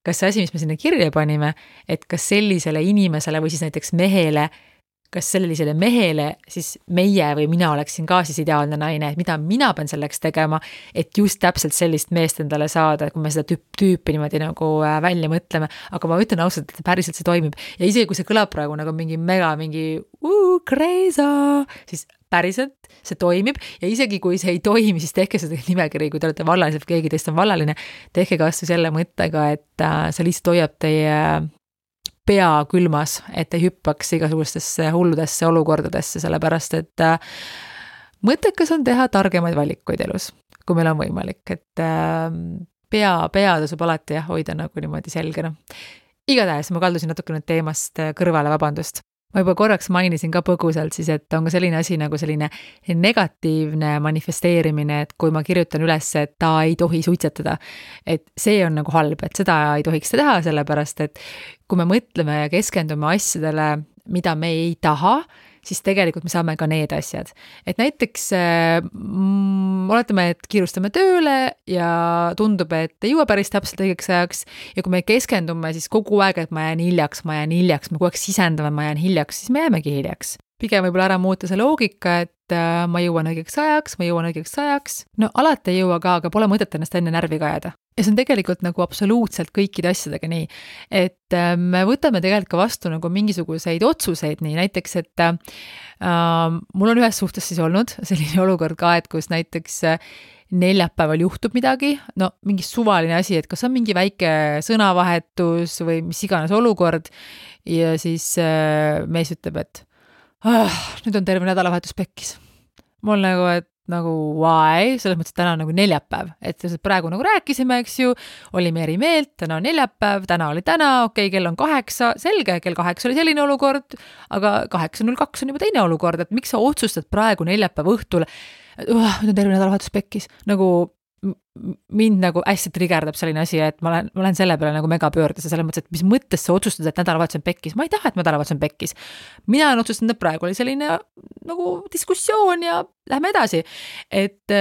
kas see asi, mis me sinna kirja panime, et kas sellisele inimesele või siis näiteks mehele, kas sellisele mehele siis meie või mina oleksin ka siis ideaalne naine, et mida mina pean selleks tegema, et just täpselt sellist meest endale saada, kui me seda tüüpi niimoodi nagu välja mõtleme, aga ma ütlen ausalt, et päriselt see toimib ja isegi kui see kõlab praegu nagu mingi crazy, siis päriselt see toimib ja isegi kui see ei toimi, siis tehke seda nimekiri, kui te olete vallalised või keegi teist on vallaline, tehke kasvõi selle mõttega, et see lihtsalt hoiab teie pea külmas, et ei hüppaks igasugustesse hulludesse olukordadesse, sellepärast, et mõttekas on teha targemaid valikuid elus, kui meil on võimalik, et pea tasub alati hoida nagu niimoodi selgena. Igatahes ma kaldusin natuke nüüd teemast kõrvale, vabandust. Ma juba korraks mainisin ka põgusalt siis, et on ka selline asi nagu selline negatiivne manifesteerimine, et kui ma kirjutan üles, et ta ei tohi suitsetada, et see on nagu halb, et seda ei tohiks teha, sellepärast, et kui me mõtleme ja keskendume asjadele mida me ei taha, siis tegelikult me saame ka need asjad. Et näiteks oletame, et kiirustame tööle ja tundub, et ei jõua päris täpselt õigeks ajaks ja kui me keskendume siis kogu aeg, et ma jään hiljaks, me kogu aeg sisendame, ma jään hiljaks, siis me jäämegi hiljaks. Pigem võib-olla ära muuta see loogika, et ma jõuan õigeks ajaks. No alati ei jõua ka, aga pole mõtet ennast enne närvi kajada. Ja see on tegelikult nagu absoluutselt kõikide asjadega nii, et me võtame tegelikult ka vastu nagu mingisuguseid otsuseid nii, näiteks, et mul on ühes suhtes siis olnud selline olukord ka, et kus näiteks neljapäeval juhtub midagi, no mingi suvaline asi, et kas on mingi väike sõnavahetus või mis iganes olukord ja siis mees ütleb, et nüüd on terve nädalavahetus pekkis. Mul nagu why, selles mõttes, et täna on nagu neljapäev, et praegu nagu rääkisime, eks ju, olime eri meelt, täna on neljapäev, täna oli täna, okei, kell on 8, selge, kell 8 oli selline olukord, aga 8.02 on juba teine olukord, et miks sa otsustad praegu neljapäeva õhtul, nüüd on terve nädalavahetus pekkis, nagu mind nagu hästi trigerdab selline asi, et ma olen selle peale nagu mega pöördes ja selles mõttes, et mis mõttes sa otsustad, et nädalavahetus on pekkis. Ma ei taha, et nädalavahetus on pekkis. Mina olen otsustanud, et praegu oli selline nagu diskussioon ja lähme edasi. Et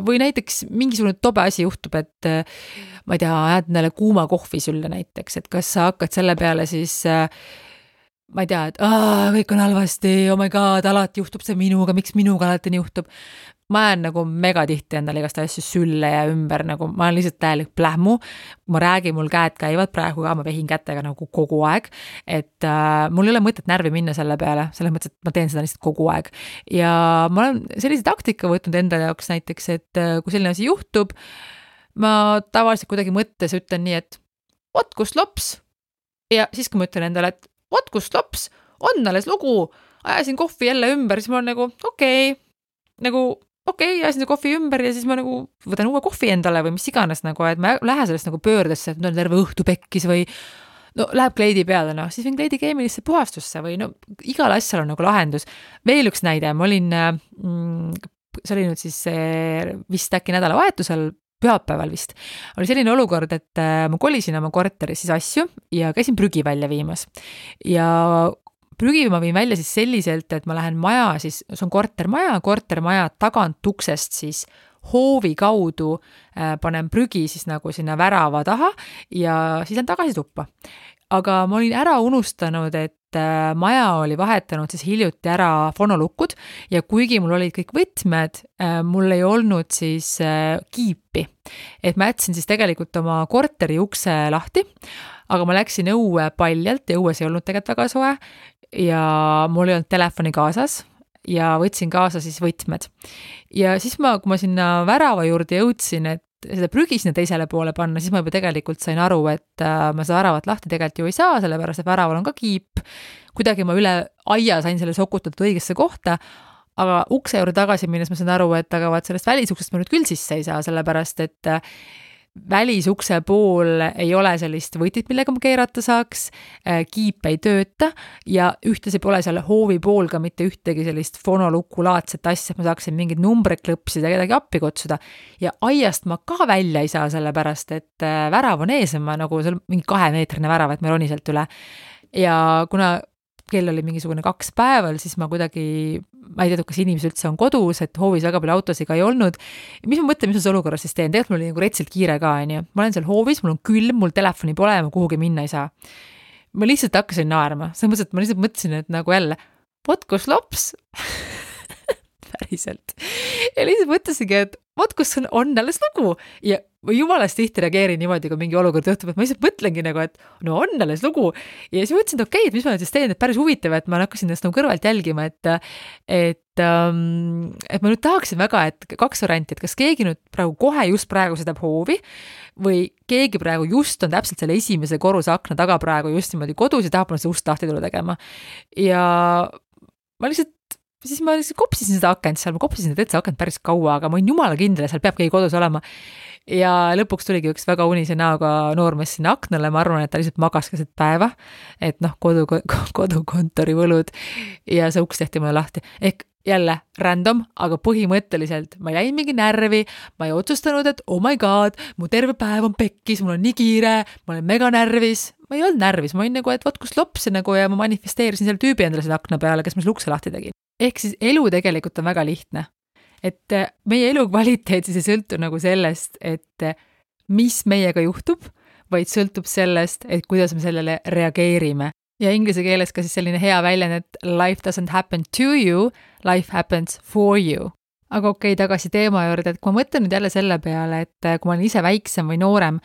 või näiteks mingisugune tobe asi juhtub, et ma ei tea, ajad neile kuuma kohvi sülle näiteks, et kas sa hakkad selle peale siis ma ei tea, et kõik on halvasti, oh my god, alati juhtub see minuga, miks minuga alati nii juhtub. Ma jään nagu mega tihti endale igast asju sülle ja ümber, nagu ma olen lihtsalt täielik plähmu, ma räägin, mul käed käivad praegu ka, ma vehin kätega nagu kogu aeg, et mul ei ole mõtet närvi minna selle peale, selles mõttes, et ma teen seda lihtsalt kogu aeg. Ja ma olen sellise taktika võtnud enda jaoks näiteks, et kui selline asi juhtub, ma tavaliselt kuidagi mõttes ütlen nii, et vot kus lops, ja siis kui ma ütlen endale, et vot kus lops, on alles lugu, ajasin kohvi jälle ümber, siis ma olen nagu ajasin see kohvi ümber ja siis ma nagu võtan uue kohvi endale või mis iganes nagu, et ma lähen sellest nagu pöördesse, et on terve õhtu pekkis või no läheb kleidi peale, no siis võin kleidi keemilisse puhastusse või no igal asjal on nagu lahendus. Veel üks näide, ma olin, see oli nüüd siis vist äkki nädalavahetusel, pühapäeval vist, oli selline olukord, et ma kolisin oma korteris siis asju ja käisin prügi välja viimas ja prügi ma viin välja siis selliselt, et ma lähen maja, siis see on kortermaja tagant uksest siis hoovi kaudu panen prügi siis nagu sinna värava taha ja siis lähen tagasi tuppa. Aga ma olin ära unustanud, et maja oli vahetanud siis hiljuti ära fonolukud ja kuigi mul olid kõik võtmed, mul ei olnud siis kiipi. Et ma jätsin siis tegelikult oma korteri ukse lahti, aga ma läksin õue paljalt ja õues ei olnud tegelikult väga soe ja mul ei olnud telefoni kaasas ja võtsin kaasa siis võtmed. Ja siis kui ma sinna värava juurde jõudsin, et seda prügi sinna teisele poole panna, siis ma juba tegelikult sain aru, et ma seda väravat lahti tegelikult ju ei saa, sellepärast et väraval on ka kiip. Kuidagi ma üle aia sain selle sokutatud õigesse kohta, aga ukse juurde tagasi minnes ma sain aru, et aga vaat sellest välisuksest ma nüüd küll sisse ei saa, sellepärast et välisukse pool ei ole sellist võtit, millega ma keerata saaks, kiip ei tööta ja ühtlasi pole seal hoovi pool ka mitte ühtegi sellist fonolukulaadset asja, et ma saaksin mingid numbreid klõpsida, kedagi appi kutsuda ja aiast ma ka välja ei saa, sellepärast et värav on ees, ma nagu seal mingi 2-meetrine värav, et ma roni sealt üle ja kuna kell oli mingisugune 2 päeval, siis ma kuidagi, ma ei teadnud, kas inimesed üldse on kodus, et hoovis väga palju autosid ka ei olnud. Mis ma mõtlen, mis ma olukorras siis teen? Tegelikult mul oli nagu retsilt kiire ka, ma olen seal hoovis, mul on külm, mul telefoni pole ja ma kuhugi minna ei saa. Ma lihtsalt hakkasin naerma. See mõttes, et ma lihtsalt mõtlesin, et nagu jälle, vot kus lops? Päriselt. Ja lihtsalt mõtlesingi, et vot kus on alles lugu ja jumalast tihti reageerin niimoodi, kui mingi olukord juhtub, et ma lihtsalt mõtlengi nagu, et no on alles lugu ja siis mõtlesin, et okei, et mis ma nüüd siis teen, et päris huvitav, et ma hakkasin ennast nagu kõrvalt jälgima, et ma nüüd tahaksin väga, et 2 varianti, et kas keegi nüüd kohe just praegu sõidab hoovi või keegi praegu just on täpselt selle esimese korruse akna taga praegu just niimoodi kodus ja tahab see ust lahti tulla tegema ja ma lihtsalt kopsisin seda akent seal, ma kopsisin seda akent päris kaua, aga ma olin jumala kindel, seal peab keegi kodus olema. Ja lõpuks tuligi üks väga unise näoga noormees sinna aknale, ma arvan, et ta lihtsalt magas keset päeva, et kodukontori võlud ja see uks tehti mulle lahti. Ehk jälle random, aga põhimõtteliselt ma jäin mingi närvi, ma ei otsustanud, et oh my god, mu terve päev on pekkis, mul on nii kiire, ma olen mega närvis, ma ei olnud närvis, ma olin nagu, et vot kus lops nagu ja ma manifesteerisin selle tüübi endale selle akna peale, kes meil ukse lahti tegi. Ehk siis elu tegelikult on väga lihtne. Et meie elu kvaliteet siis ei sõltu nagu sellest, et mis meiega juhtub, vaid sõltub sellest, et kuidas me sellele reageerime. Ja inglise keeles ka siis selline hea väljend, et life doesn't happen to you, life happens for you. Aga okei, tagasi teema juurde, et kui ma mõtlen nüüd jälle selle peale, et kui ma olen ise väiksem või noorem,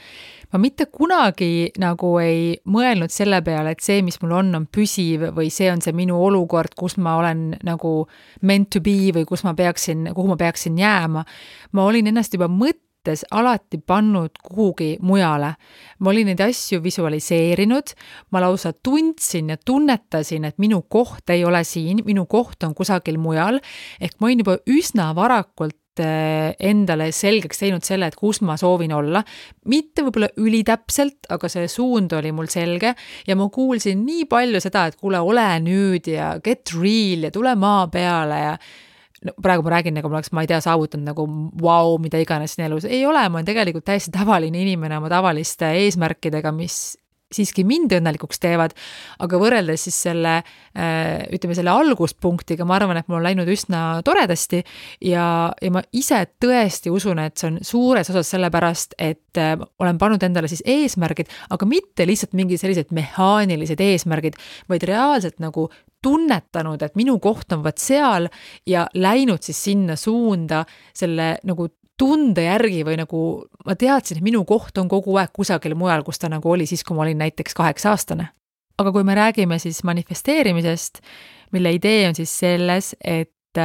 ma mitte kunagi nagu ei mõelnud selle peale, et see, mis mul on püsiv või see on see minu olukord, kus ma olen nagu meant to be või kuhu ma peaksin jääma. Ma olin ennast juba alati pannud kuhugi mujale. Ma olin neid asju visualiseerinud, ma lausa tundsin ja tunnetasin, et minu koht ei ole siin, minu koht on kusagil mujal, ehk ma olin juba üsna varakult endale selgeks teinud selle, et kus ma soovin olla. Mitte võib-olla ülitäpselt, aga see suund oli mul selge ja ma kuulsin nii palju seda, et kuule, ole nüüd ja get real ja tule maa peale ja no, praegu ma räägin, nagu ma oleks, ma ei tea, saavutanud nagu wow, mida iganes siin elus. Ei ole, ma olen tegelikult täiesti tavaline inimene oma tavaliste eesmärkidega, mis siiski mind õnnelikuks teevad, aga võrreldes siis selle alguspunktiga, ma arvan, et mul on läinud üsna toredasti ja ma ise tõesti usun, et see on suures osas sellepärast, et olen pannud endale siis eesmärgid, aga mitte lihtsalt mingi sellised mehaanilised eesmärgid, vaid reaalselt nagu tunnetanud, et minu koht on vaat seal ja läinud siis sinna suunda selle nagu tunde järgi või nagu ma teadsin, et minu koht on kogu aeg kusagil mujal, kus ta nagu oli siis, kui ma olin näiteks 8-aastane. Aga kui me räägime siis manifesteerimisest, mille idee on siis selles, et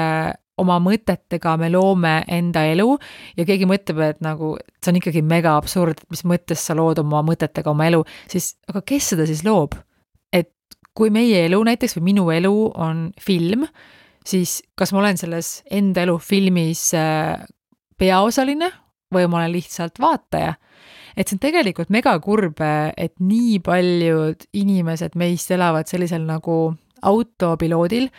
oma mõtetega me loome enda elu ja keegi mõtleb, et nagu see on ikkagi mega absurd, mis mõttes sa lood oma mõtetega oma elu, siis aga kes seda siis loob? Kui meie elu näiteks või minu elu on film, siis kas ma olen selles enda elu filmis peaosaline või ma olen lihtsalt vaataja? Et see on tegelikult mega kurb, et nii paljud inimesed meist elavad sellisel nagu autopiloodil,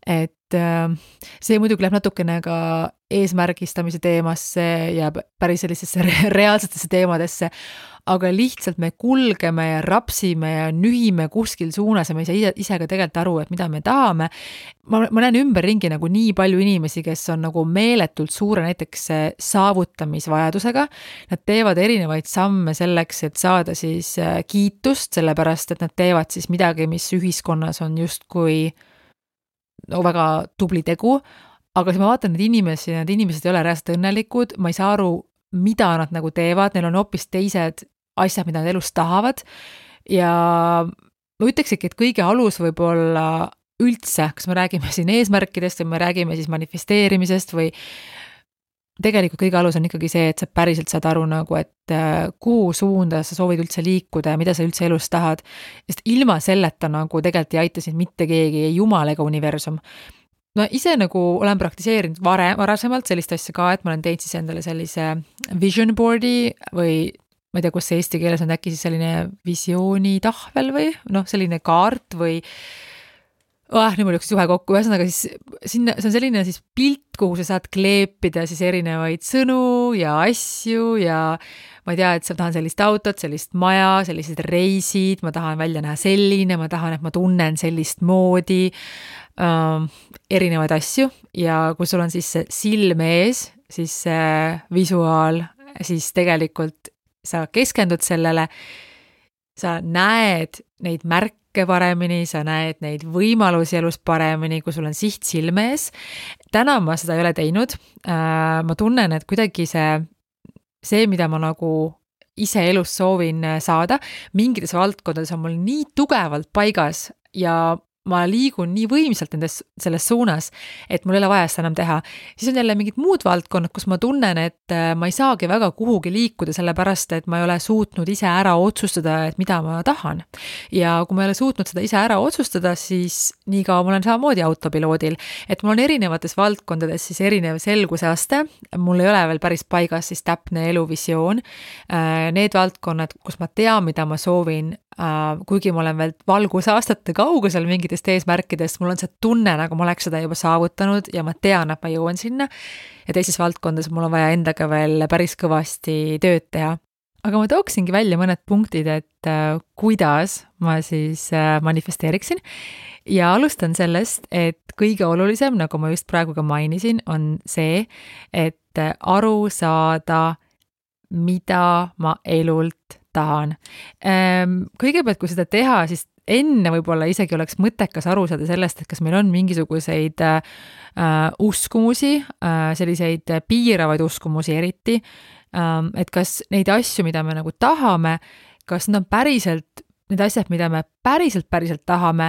et see muidugi läheb natukene ka eesmärgistamise teemasse ja päris sellisesse reaalsetesse teemadesse, aga lihtsalt me kulgeme ja rapsime ja nühime kuskil suunas ja me ei saa ise ka tegelikult aru, et mida me tahame. Ma näen ümberringi nagu nii palju inimesi, kes on nagu meeletult suure näiteks saavutamisvajadusega. Nad teevad erinevaid samme selleks, et saada siis kiitust, sellepärast, et nad teevad siis midagi, mis ühiskonnas on justkui väga tubli tegu, aga siis ma vaatan need inimesed ei ole reaalselt õnnelikud, ma ei saa aru, mida nad nagu teevad, neil on hoopis teised asjad, mida nad elus tahavad ja ma ütlekski, et kõige alus võib olla üldse, kas me räägime siin eesmärkidest või me räägime siis manifesteerimisest või tegelikult kõige alus on ikkagi see, et sa päriselt saad aru nagu, et kuhu suunda sa soovid üldse liikuda ja mida sa üldse elus tahad, sest ilma selleta nagu tegelikult ei aita sind mitte keegi, ei jumal ega universum. No ise nagu olen praktiseerinud varasemalt sellist asja ka, et ma olen teinud siis endale sellise vision boardi või ma ei tea, kus see eesti keeles on äkki siis selline visioonitahvel või selline kaart või nüüd mul jooksis juhe kokku, ühesõnaga siis sinna, see on selline siis pilt, kuhu sa saad kleepida siis erinevaid sõnu ja asju ja ma ei tea, et ma tahan sellist autot, sellist maja, sellised reisid, ma tahan välja näha selline, ma tahan, et ma tunnen sellist moodi, erinevaid asju ja kui sul on siis see silm ees, siis see visuaal, siis tegelikult sa keskendud sellele, sa näed neid märke paremini, sa näed neid võimalusi elus paremini, kui sul on siht silme ees. Täna ma seda ei ole teinud. Ma tunnen, et kuidagi see, mida ma nagu ise elus soovin saada, mingites valdkondades on mul nii tugevalt paigas ja ma liigun nii võimsalt selles suunas, et mul ei ole vaja seda enam teha. Siis on jälle mingid muud valdkonnad, kus ma tunnen, et ma ei saagi väga kuhugi liikuda, sellepärast, et ma ei ole suutnud ise ära otsustada, et mida ma tahan. Ja kui ma ei ole suutnud seda ise ära otsustada, siis nii kaua ma olen samamoodi autopiloodil, et mul on erinevates valdkondades siis erinev selguse aste, mul ei ole veel päris paigas siis täpne eluvisioon. Need valdkonnad, kus ma tean, mida ma soovin, kuigi ma olen veel valgusaastate kaugusel mingitest eesmärkidest, mul on see tunne, nagu ma oleks seda juba saavutanud ja ma tean, et ma jõuan sinna ja teises valdkondades mul on vaja endaga veel päris kõvasti tööd teha. aga ma tooksingi välja mõned punktid, et kuidas ma siis manifesteeriksin ja alustan sellest, et kõige olulisem, nagu ma just praegu ka mainisin, on see, et aru saada, mida ma elult tahan. Kõigepealt, kui seda teha, siis enne võib-olla isegi oleks mõttekas aru saada sellest, et kas meil on mingisuguseid uskumusi, selliseid piiravaid uskumusi eriti, et kas neid asju, mida me nagu tahame, kas need on päriselt need asjad, mida me päriselt tahame,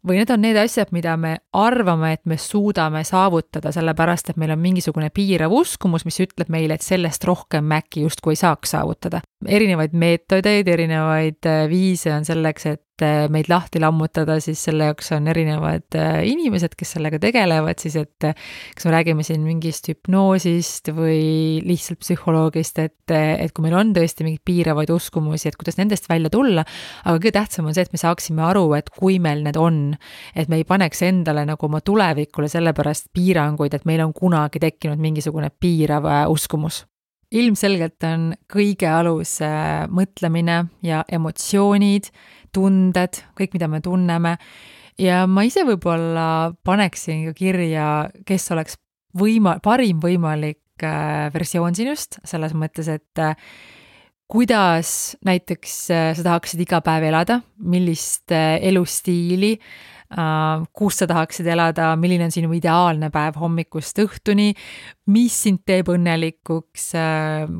või need on need asjad, mida me arvame, et me suudame saavutada, sellepärast, et meil on mingisugune piirav uskumus, mis ütleb meile, et sellest rohkem me äkki justkui ei saaks saavutada. Erinevaid meetodeid, erinevaid viise on selleks, et meid lahti lammutada, siis selle jaoks on erinevad inimesed, kes sellega tegelevad, siis et kas me räägime siin mingist hüpnoosist või lihtsalt psühholoogist, et kui meil on tõesti mingeid piiravaid uskumusi, et kuidas nendest välja tulla, aga kõige tähtsam on see, et me saaksime aru, et kui meil need on, et me ei paneks endale nagu oma tulevikule sellepärast piiranguid, et meil on kunagi tekkinud mingisugune piirav uskumus. Ilmselgelt on kõige alus mõtlemine ja emotsioonid, tunded, kõik, mida me tunneme. Ja ma ise võib-olla paneksin ka kirja, kes oleks parim võimalik versioon sinust, selles mõttes, et kuidas näiteks sa tahaksid iga päev elada, millist elustiili, kus sa tahaksid elada, milline on sinu ideaalne päev hommikust õhtuni, mis sind teeb õnnelikuks,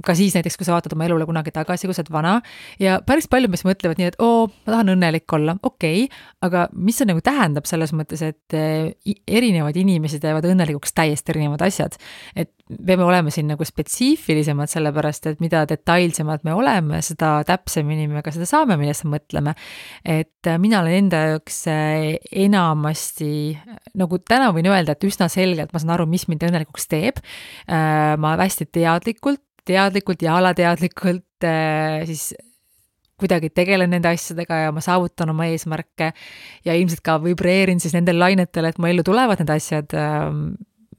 ka siis näiteks, kui sa vaatad oma elule kunagi tagasi, kui sa oled vana, ja päris palju meist mõtlevad nii, et ma tahan õnnelik olla, okei, aga mis see nagu tähendab selles mõttes, et erinevad inimesed teevad õnnelikuks täiesti erinevad asjad, et peame olema siin nagu spetsiifilisemad, sellepärast, et mida detailsemad me oleme, seda täpsemini me ka seda saame, millest mõtleme, et mina olen enda jaoks enamasti, nagu täna võin öelda, et üsna selgelt ma saan aru, mis mind õnnelikuks teeb. Ma hästi teadlikult ja alateadlikult siis kuidagi tegelen nende asjadega ja ma saavutan oma eesmärke ja ilmselt ka vibreerin siis nendel lainetel, et mu ellu tulevad need asjad,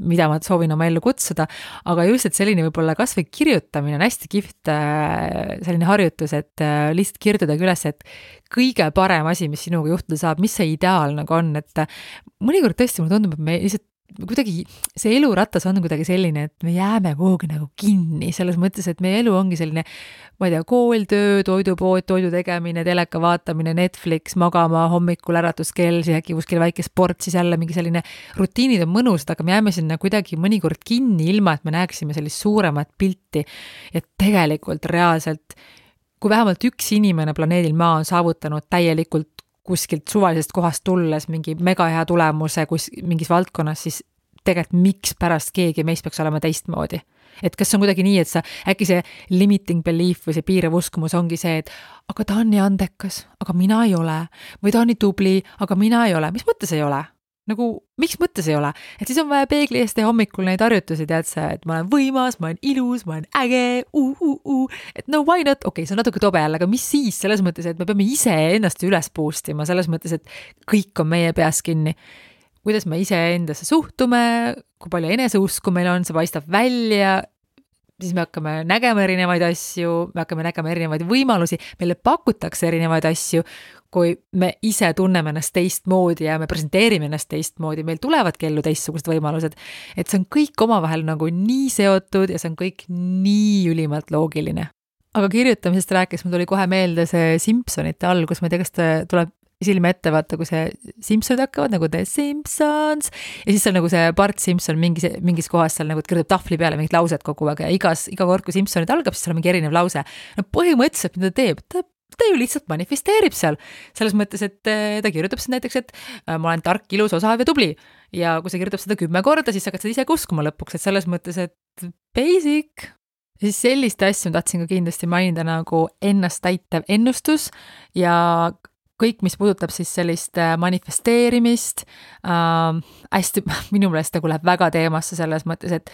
mida ma soovin oma ellu kutsuda, aga just, et selline võib-olla kas või kirjutamine on hästi kihvt selline harjutus, et lihtsalt kirjutada üles, et kõige parem asi, mis sinuga juhtuda saab, mis see ideaal nagu on, et mõnikord tõesti mulle tundub, et me lihtsalt kuidagi see eluratas on kuidagi selline, et me jääme kuhugi nagu kinni, selles mõttes, et meie elu ongi selline, ma ei tea, kool, töö, toidupood, toidu tegemine, teleka vaatamine, Netflix, magama, hommikul äratuskell, siis äkki kuskil väike sport, siis jälle mingi selline rutiinid on mõnusad, aga me jääme sinna kuidagi mõnikord kinni, ilma et me näeksime sellist suuremat pilti. Ja tegelikult reaalselt, kui vähemalt üks inimene planeedil Maa on saavutanud täielikult kuskilt suvalisest kohast tulles mingi mega hea tulemuse mingis valdkonnas, siis tegelikult miks pärast keegi meist peaks olema teistmoodi. Et kas on kuidagi nii, et äkki see limiting belief või see piirav uskumus ongi see, et aga ta on nii andekas, aga mina ei ole, või ta on nii tubli, aga mina ei ole. Mis mõttes ei ole? Nagu, miks mõttes ei ole? Et siis on vaja peegli eest teha hommikul neid harjutusi, tead sa, et ma olen võimas, ma olen ilus, ma olen äge, et no why not, okei, see on natuke tobe jälle, aga mis siis selles mõttes, et me peame ise ennast üles boostima, selles mõttes, et kõik on meie peas kinni. Kuidas me ise endasse suhtume, kui palju eneseusku meil on, see paistab välja, siis me hakkame nägema erinevaid asju, me hakkame nägema erinevaid võimalusi, meile pakutakse erinevaid asju, kui me ise tunneme ennast teistmoodi ja me presenteerime ennast teistmoodi, meil tulevadki ellu teistsugused võimalused, et see on kõik omavahel nagu nii seotud ja see on kõik nii ülimalt loogiline. Aga kirjutamisest rääkis, mul tuli kohe meelde see Simpsonite algus, ma ei tea, kas tuleb silme ette, vaata, kui see Simpsonid hakkavad nagu The Simpsons ja siis on nagu see Bart Simpson mingis kohas seal nagu kirjutab tahvli peale mingid laused kogu aeg ja iga kord, kui Simpsonid algab, siis on mingi erinev lause. No põhimõtteliselt, mida ta teeb? Ta ju lihtsalt manifesteerib seal. Selles mõttes, et ta kirjutab seda näiteks, et ma olen tark, ilus, osav ja tubli. Ja kui sa kirjutab seda 10 korda, siis hakkad seda ise uskuma lõpuks, et selles mõttes, et basic. Ja siis sellist asju tahtsin ka kindlasti mainida nagu ennast täitev ennustus ja kõik, mis puudutab siis sellist manifesteerimist, hästi, minu meelest nagu läheb väga teemasse selles mõttes, et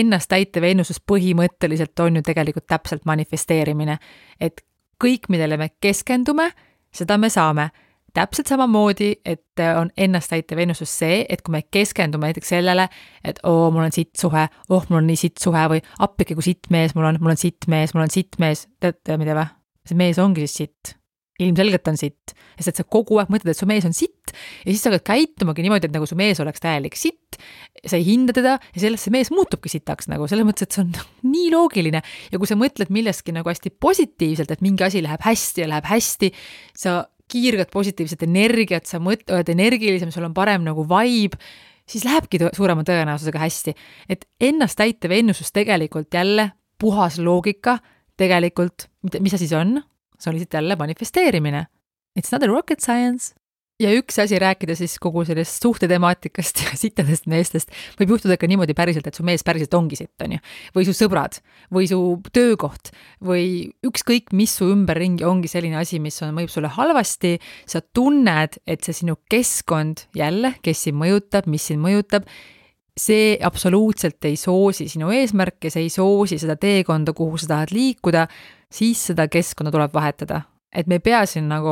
ennast täitev ennustus põhimõtteliselt on ju tegelikult täpselt manifesteerimine, et kõik, millele me keskendume, seda me saame. täpselt samamoodi, et on ennastäitev ennustus see, et kui me keskendume näiteks sellele, et mul on sitt suhe, mul on nii sitt suhe või appike, kui sitt mees mul on sitt mees, teate mida või? See mees ongi siis sitt. Ilmselgelt on sitt, sest et sa kogu aeg mõtled, et su mees on sitt ja siis sa hakkad käitumagi niimoodi, et nagu su mees oleks täielik sitt, sa ei hinda teda ja sellest see mees muutubki sitaks nagu, selles mõttes, et see on nii loogiline ja kui sa mõtled millestki nagu hästi positiivselt, et mingi asi läheb hästi, sa kiirgad positiivset energiat, sa oled energilisem, sul on parem nagu vibe, siis lähebki suurema tõenäosusega hästi. Et ennastäitev ennustus tegelikult jälle puhas loogika, tegelikult, mis see siis on? See oli siit jälle manifesteerimine. It's not a rocket science. Ja üks asi rääkida siis kogu sellest suhtetemaatikast ja sittadest meestest võib juhtuda ka niimoodi päriselt, et su mees päriselt ongi sitt, on ju. Või su sõbrad, või su töökoht, või ükskõik, mis su ümberringi ongi selline asi, mis mõjub sulle halvasti, sa tunned, et see sinu keskkond jälle, kes sind mõjutab, mis sind mõjutab, see absoluutselt ei soosi sinu eesmärke, see ei soosi seda teekonda, kuhu sa tahad liikuda, siis seda keskkonna tuleb vahetada. Et me ei pea siin nagu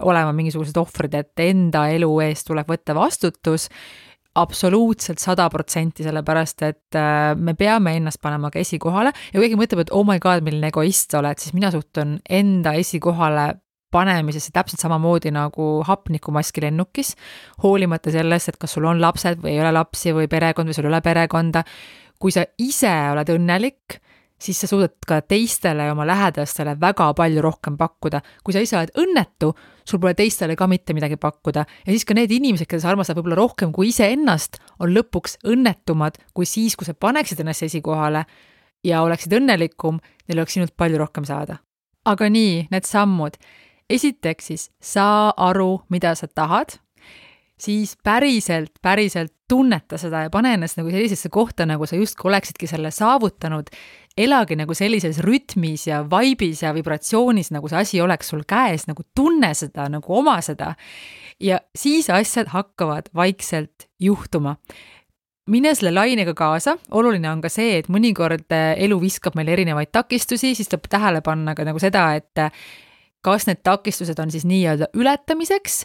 olema mingisugused ohvrid, et enda elu eest tuleb võtta vastutus absoluutselt 100%, sellepärast, et me peame ennast panema ka esikohale ja kui keegi mõtleb, et oh my god, milline egoist sa oled, siis mina suhtun enda esikohale panemisesse täpselt samamoodi nagu hapnikumaski lennukis, hoolimata sellest, et kas sul on lapsed või ei ole lapsi või perekond või sul ei ole perekonda. Kui sa ise oled õnnelik, siis sa suudad ka teistele ja oma lähedastele väga palju rohkem pakkuda. Kui sa ise oled õnnetu, sul pole teistele ka mitte midagi pakkuda. Ja siis ka need inimesed, keda sa armastad võib-olla rohkem kui ise ennast, on lõpuks õnnetumad kui siis, kui sa paneksid ennast esikohale ja oleksid õnnelikum, neil oleks sinult palju rohkem saada. Aga nii, need sammud. Esiteks siis saa aru, mida sa tahad, siis päriselt tunneta seda ja pane ennast nagu sellisesse kohta, nagu sa justkui oleksidki selle saavutanud, elagi nagu sellises rütmis ja vaibis ja vibratsioonis, nagu see asi oleks sul käes, nagu tunne seda, nagu oma seda ja siis asjad hakkavad vaikselt juhtuma. Mine selle lainega kaasa, oluline on ka see, et mõnikord elu viskab meil erinevaid takistusi, siis tuleb tähele panna ka nagu seda, et kas need takistused on siis nii-öelda ületamiseks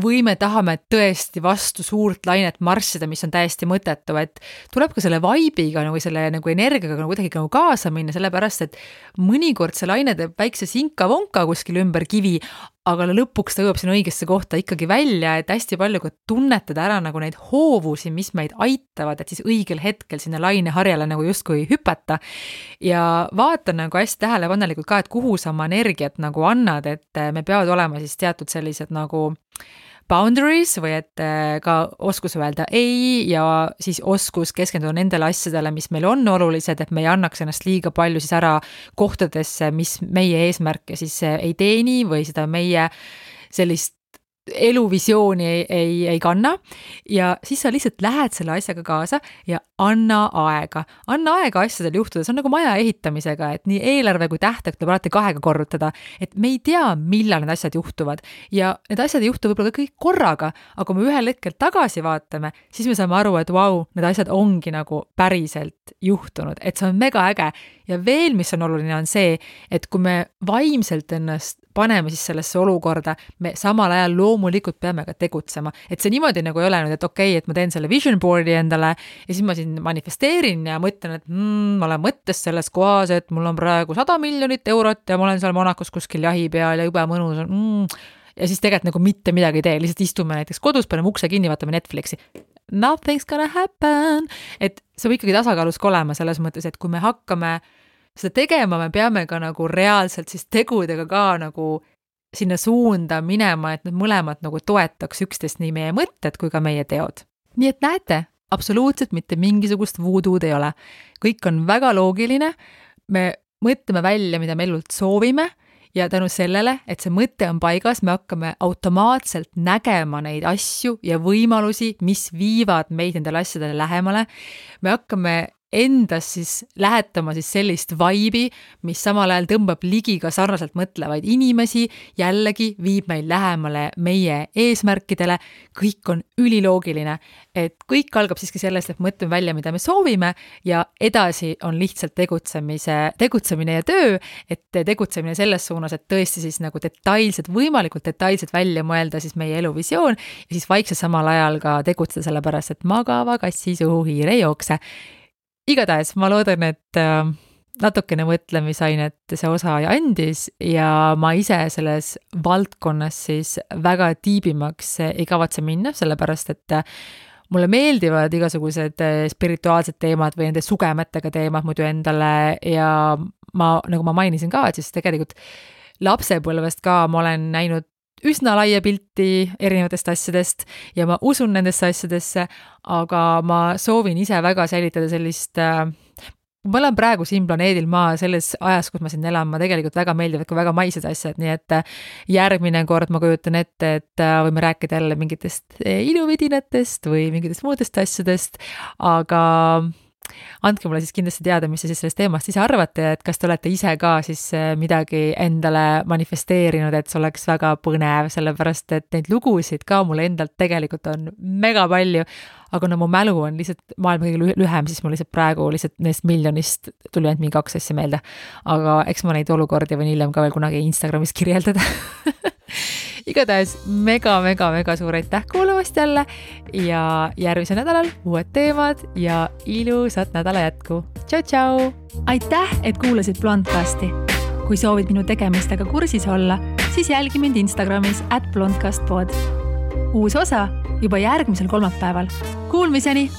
või me tahame tõesti vastu suurt lainet marssida, mis on täiesti mõttetu, et tuleb ka selle vibe'iga või selle nagu energiaga nagu kuidagi nagu kaasa minna, sellepärast, et mõnikord see laine teeb väikse sinka-vonka kuskil ümber kivi, aga lõpuks ta jõuab sinna õigesse kohta ikkagi välja, et hästi palju ka tunnetada ära nagu neid hoovusi, mis meid aitavad, et siis õigel hetkel sinna laineharjale nagu justkui hüpata ja vaata nagu hästi tähelepanelikult ka, et kuhu sa oma energiat nagu annad, et me peavad olema siis teatud sellised nagu boundaries või et ka oskus öelda ei ja siis oskus keskenduda nendele asjadele, mis meil on olulised, et me ei annaks ennast liiga palju siis ära kohtadesse, mis meie eesmärke siis ei teeni või seda meie sellist eluvisiooni ei kanna ja siis sa lihtsalt lähed selle asjaga kaasa ja anna aega asjadel juhtuda, see on nagu maja ehitamisega, et nii eelarve kui tähtaeg tuleb alati 2 korrutada, et me ei tea, millal need asjad juhtuvad ja need asjad ei juhtu võib-olla kõik korraga, aga kui me ühel hetkel tagasi vaatame, siis me saame aru, et vau, need asjad ongi nagu päriselt juhtunud, et see on mega äge ja veel, mis on oluline, on see, et kui me vaimselt ennast paneme siis sellesse olukorda, me samal ajal loomulikult peame ka tegutsema. Et see niimoodi nagu ei ole nüüd, et okei, et ma teen selle vision board'i endale ja siis ma siin manifesteerin ja mõtlen, et ma olen mõttes selles kohas, et mul on praegu 100 miljonit eurot ja ma olen seal Monacos kuskil jahi peal ja jube mõnus on. Ja siis tegelikult nagu mitte midagi ei tee, lihtsalt istume näiteks kodus, paneme ukse kinni, vaatame Netflixi. Nothing's gonna happen. Et see võib ikkagi tasakaalus olema selles mõttes, et kui me hakkame seda tegema, me peame ka nagu reaalselt siis tegudega ka nagu sinna suunda minema, et need mõlemad nagu toetaks üksteist nii meie mõtted kui ka meie teod. Nii et näete, absoluutselt mitte mingisugust voodoo'd ei ole. Kõik on väga loogiline, me mõtleme välja, mida me elult soovime ja tänu sellele, et see mõte on paigas, me hakkame automaatselt nägema neid asju ja võimalusi, mis viivad meid nendele asjadele lähemale. Me hakkame endas siis lähetama siis sellist vibe'i, mis samal ajal tõmbab ligi ka sarnaselt mõtlevaid inimesi, jällegi viib meil lähemale meie eesmärkidele, kõik on üliloogiline, et kõik algab siiski sellest, et mõtleme välja, mida me soovime ja edasi on lihtsalt tegutsemine ja töö, et tegutsemine selles suunas, et tõesti siis nagu võimalikult detailselt välja mõelda siis meie eluvisioon ja siis vaikselt samal ajal ka tegutseda sellepärast, et magava kassi suhu hiir ei jookse. Igatahes ma loodan, et natukene mõtlemisainet see osa andis ja ma ise selles valdkonnas siis väga tiibimaks ei kavatse minna, sellepärast et mulle meeldivad igasugused spirituaalsed teemad või nende sugemetega teemad muidu endale ja nagu ma mainisin ka, et siis tegelikult lapsepõlvest ka ma olen näinud üsna laia pilti erinevatest asjadest ja ma usun nendesse asjadesse, aga ma soovin ise väga säilitada sellist, ma olen praegu siin planeedil maa selles ajas, kus ma siin elan, ma tegelikult väga meeldivad ka väga maised asjad, nii et järgmine kord ma kujutan ette, et võime rääkida jälle mingitest iluvidinatest või mingitest muudest asjadest, aga andke mulle siis kindlasti teada, mis te siis sellest teemast ise arvate, et kas te olete ise ka siis midagi endale manifesteerinud, et see oleks väga põnev, sellepärast et neid lugusid ka mulle endalt tegelikult on mega palju, aga kuna mu mälu on lihtsalt maailma kõige lühem, siis mul lihtsalt praegu lihtsalt neist miljonist tuli ainult mingi 2 asja meelde, aga eks ma neid olukordi võin hiljem ka veel kunagi Instagramis kirjeldada. Igatahes mega suur aitäh kuulamast jälle ja järgmisel nädalal uued teemad ja ilusat nädala jätku. Tšau! Aitäh, et kuulasid Blondcasti. Kui soovid minu tegemistega kursis olla, siis jälgi mind Instagramis @blondcastpod. Uus osa juba järgmisel kolmapäeval. Kuulmiseni!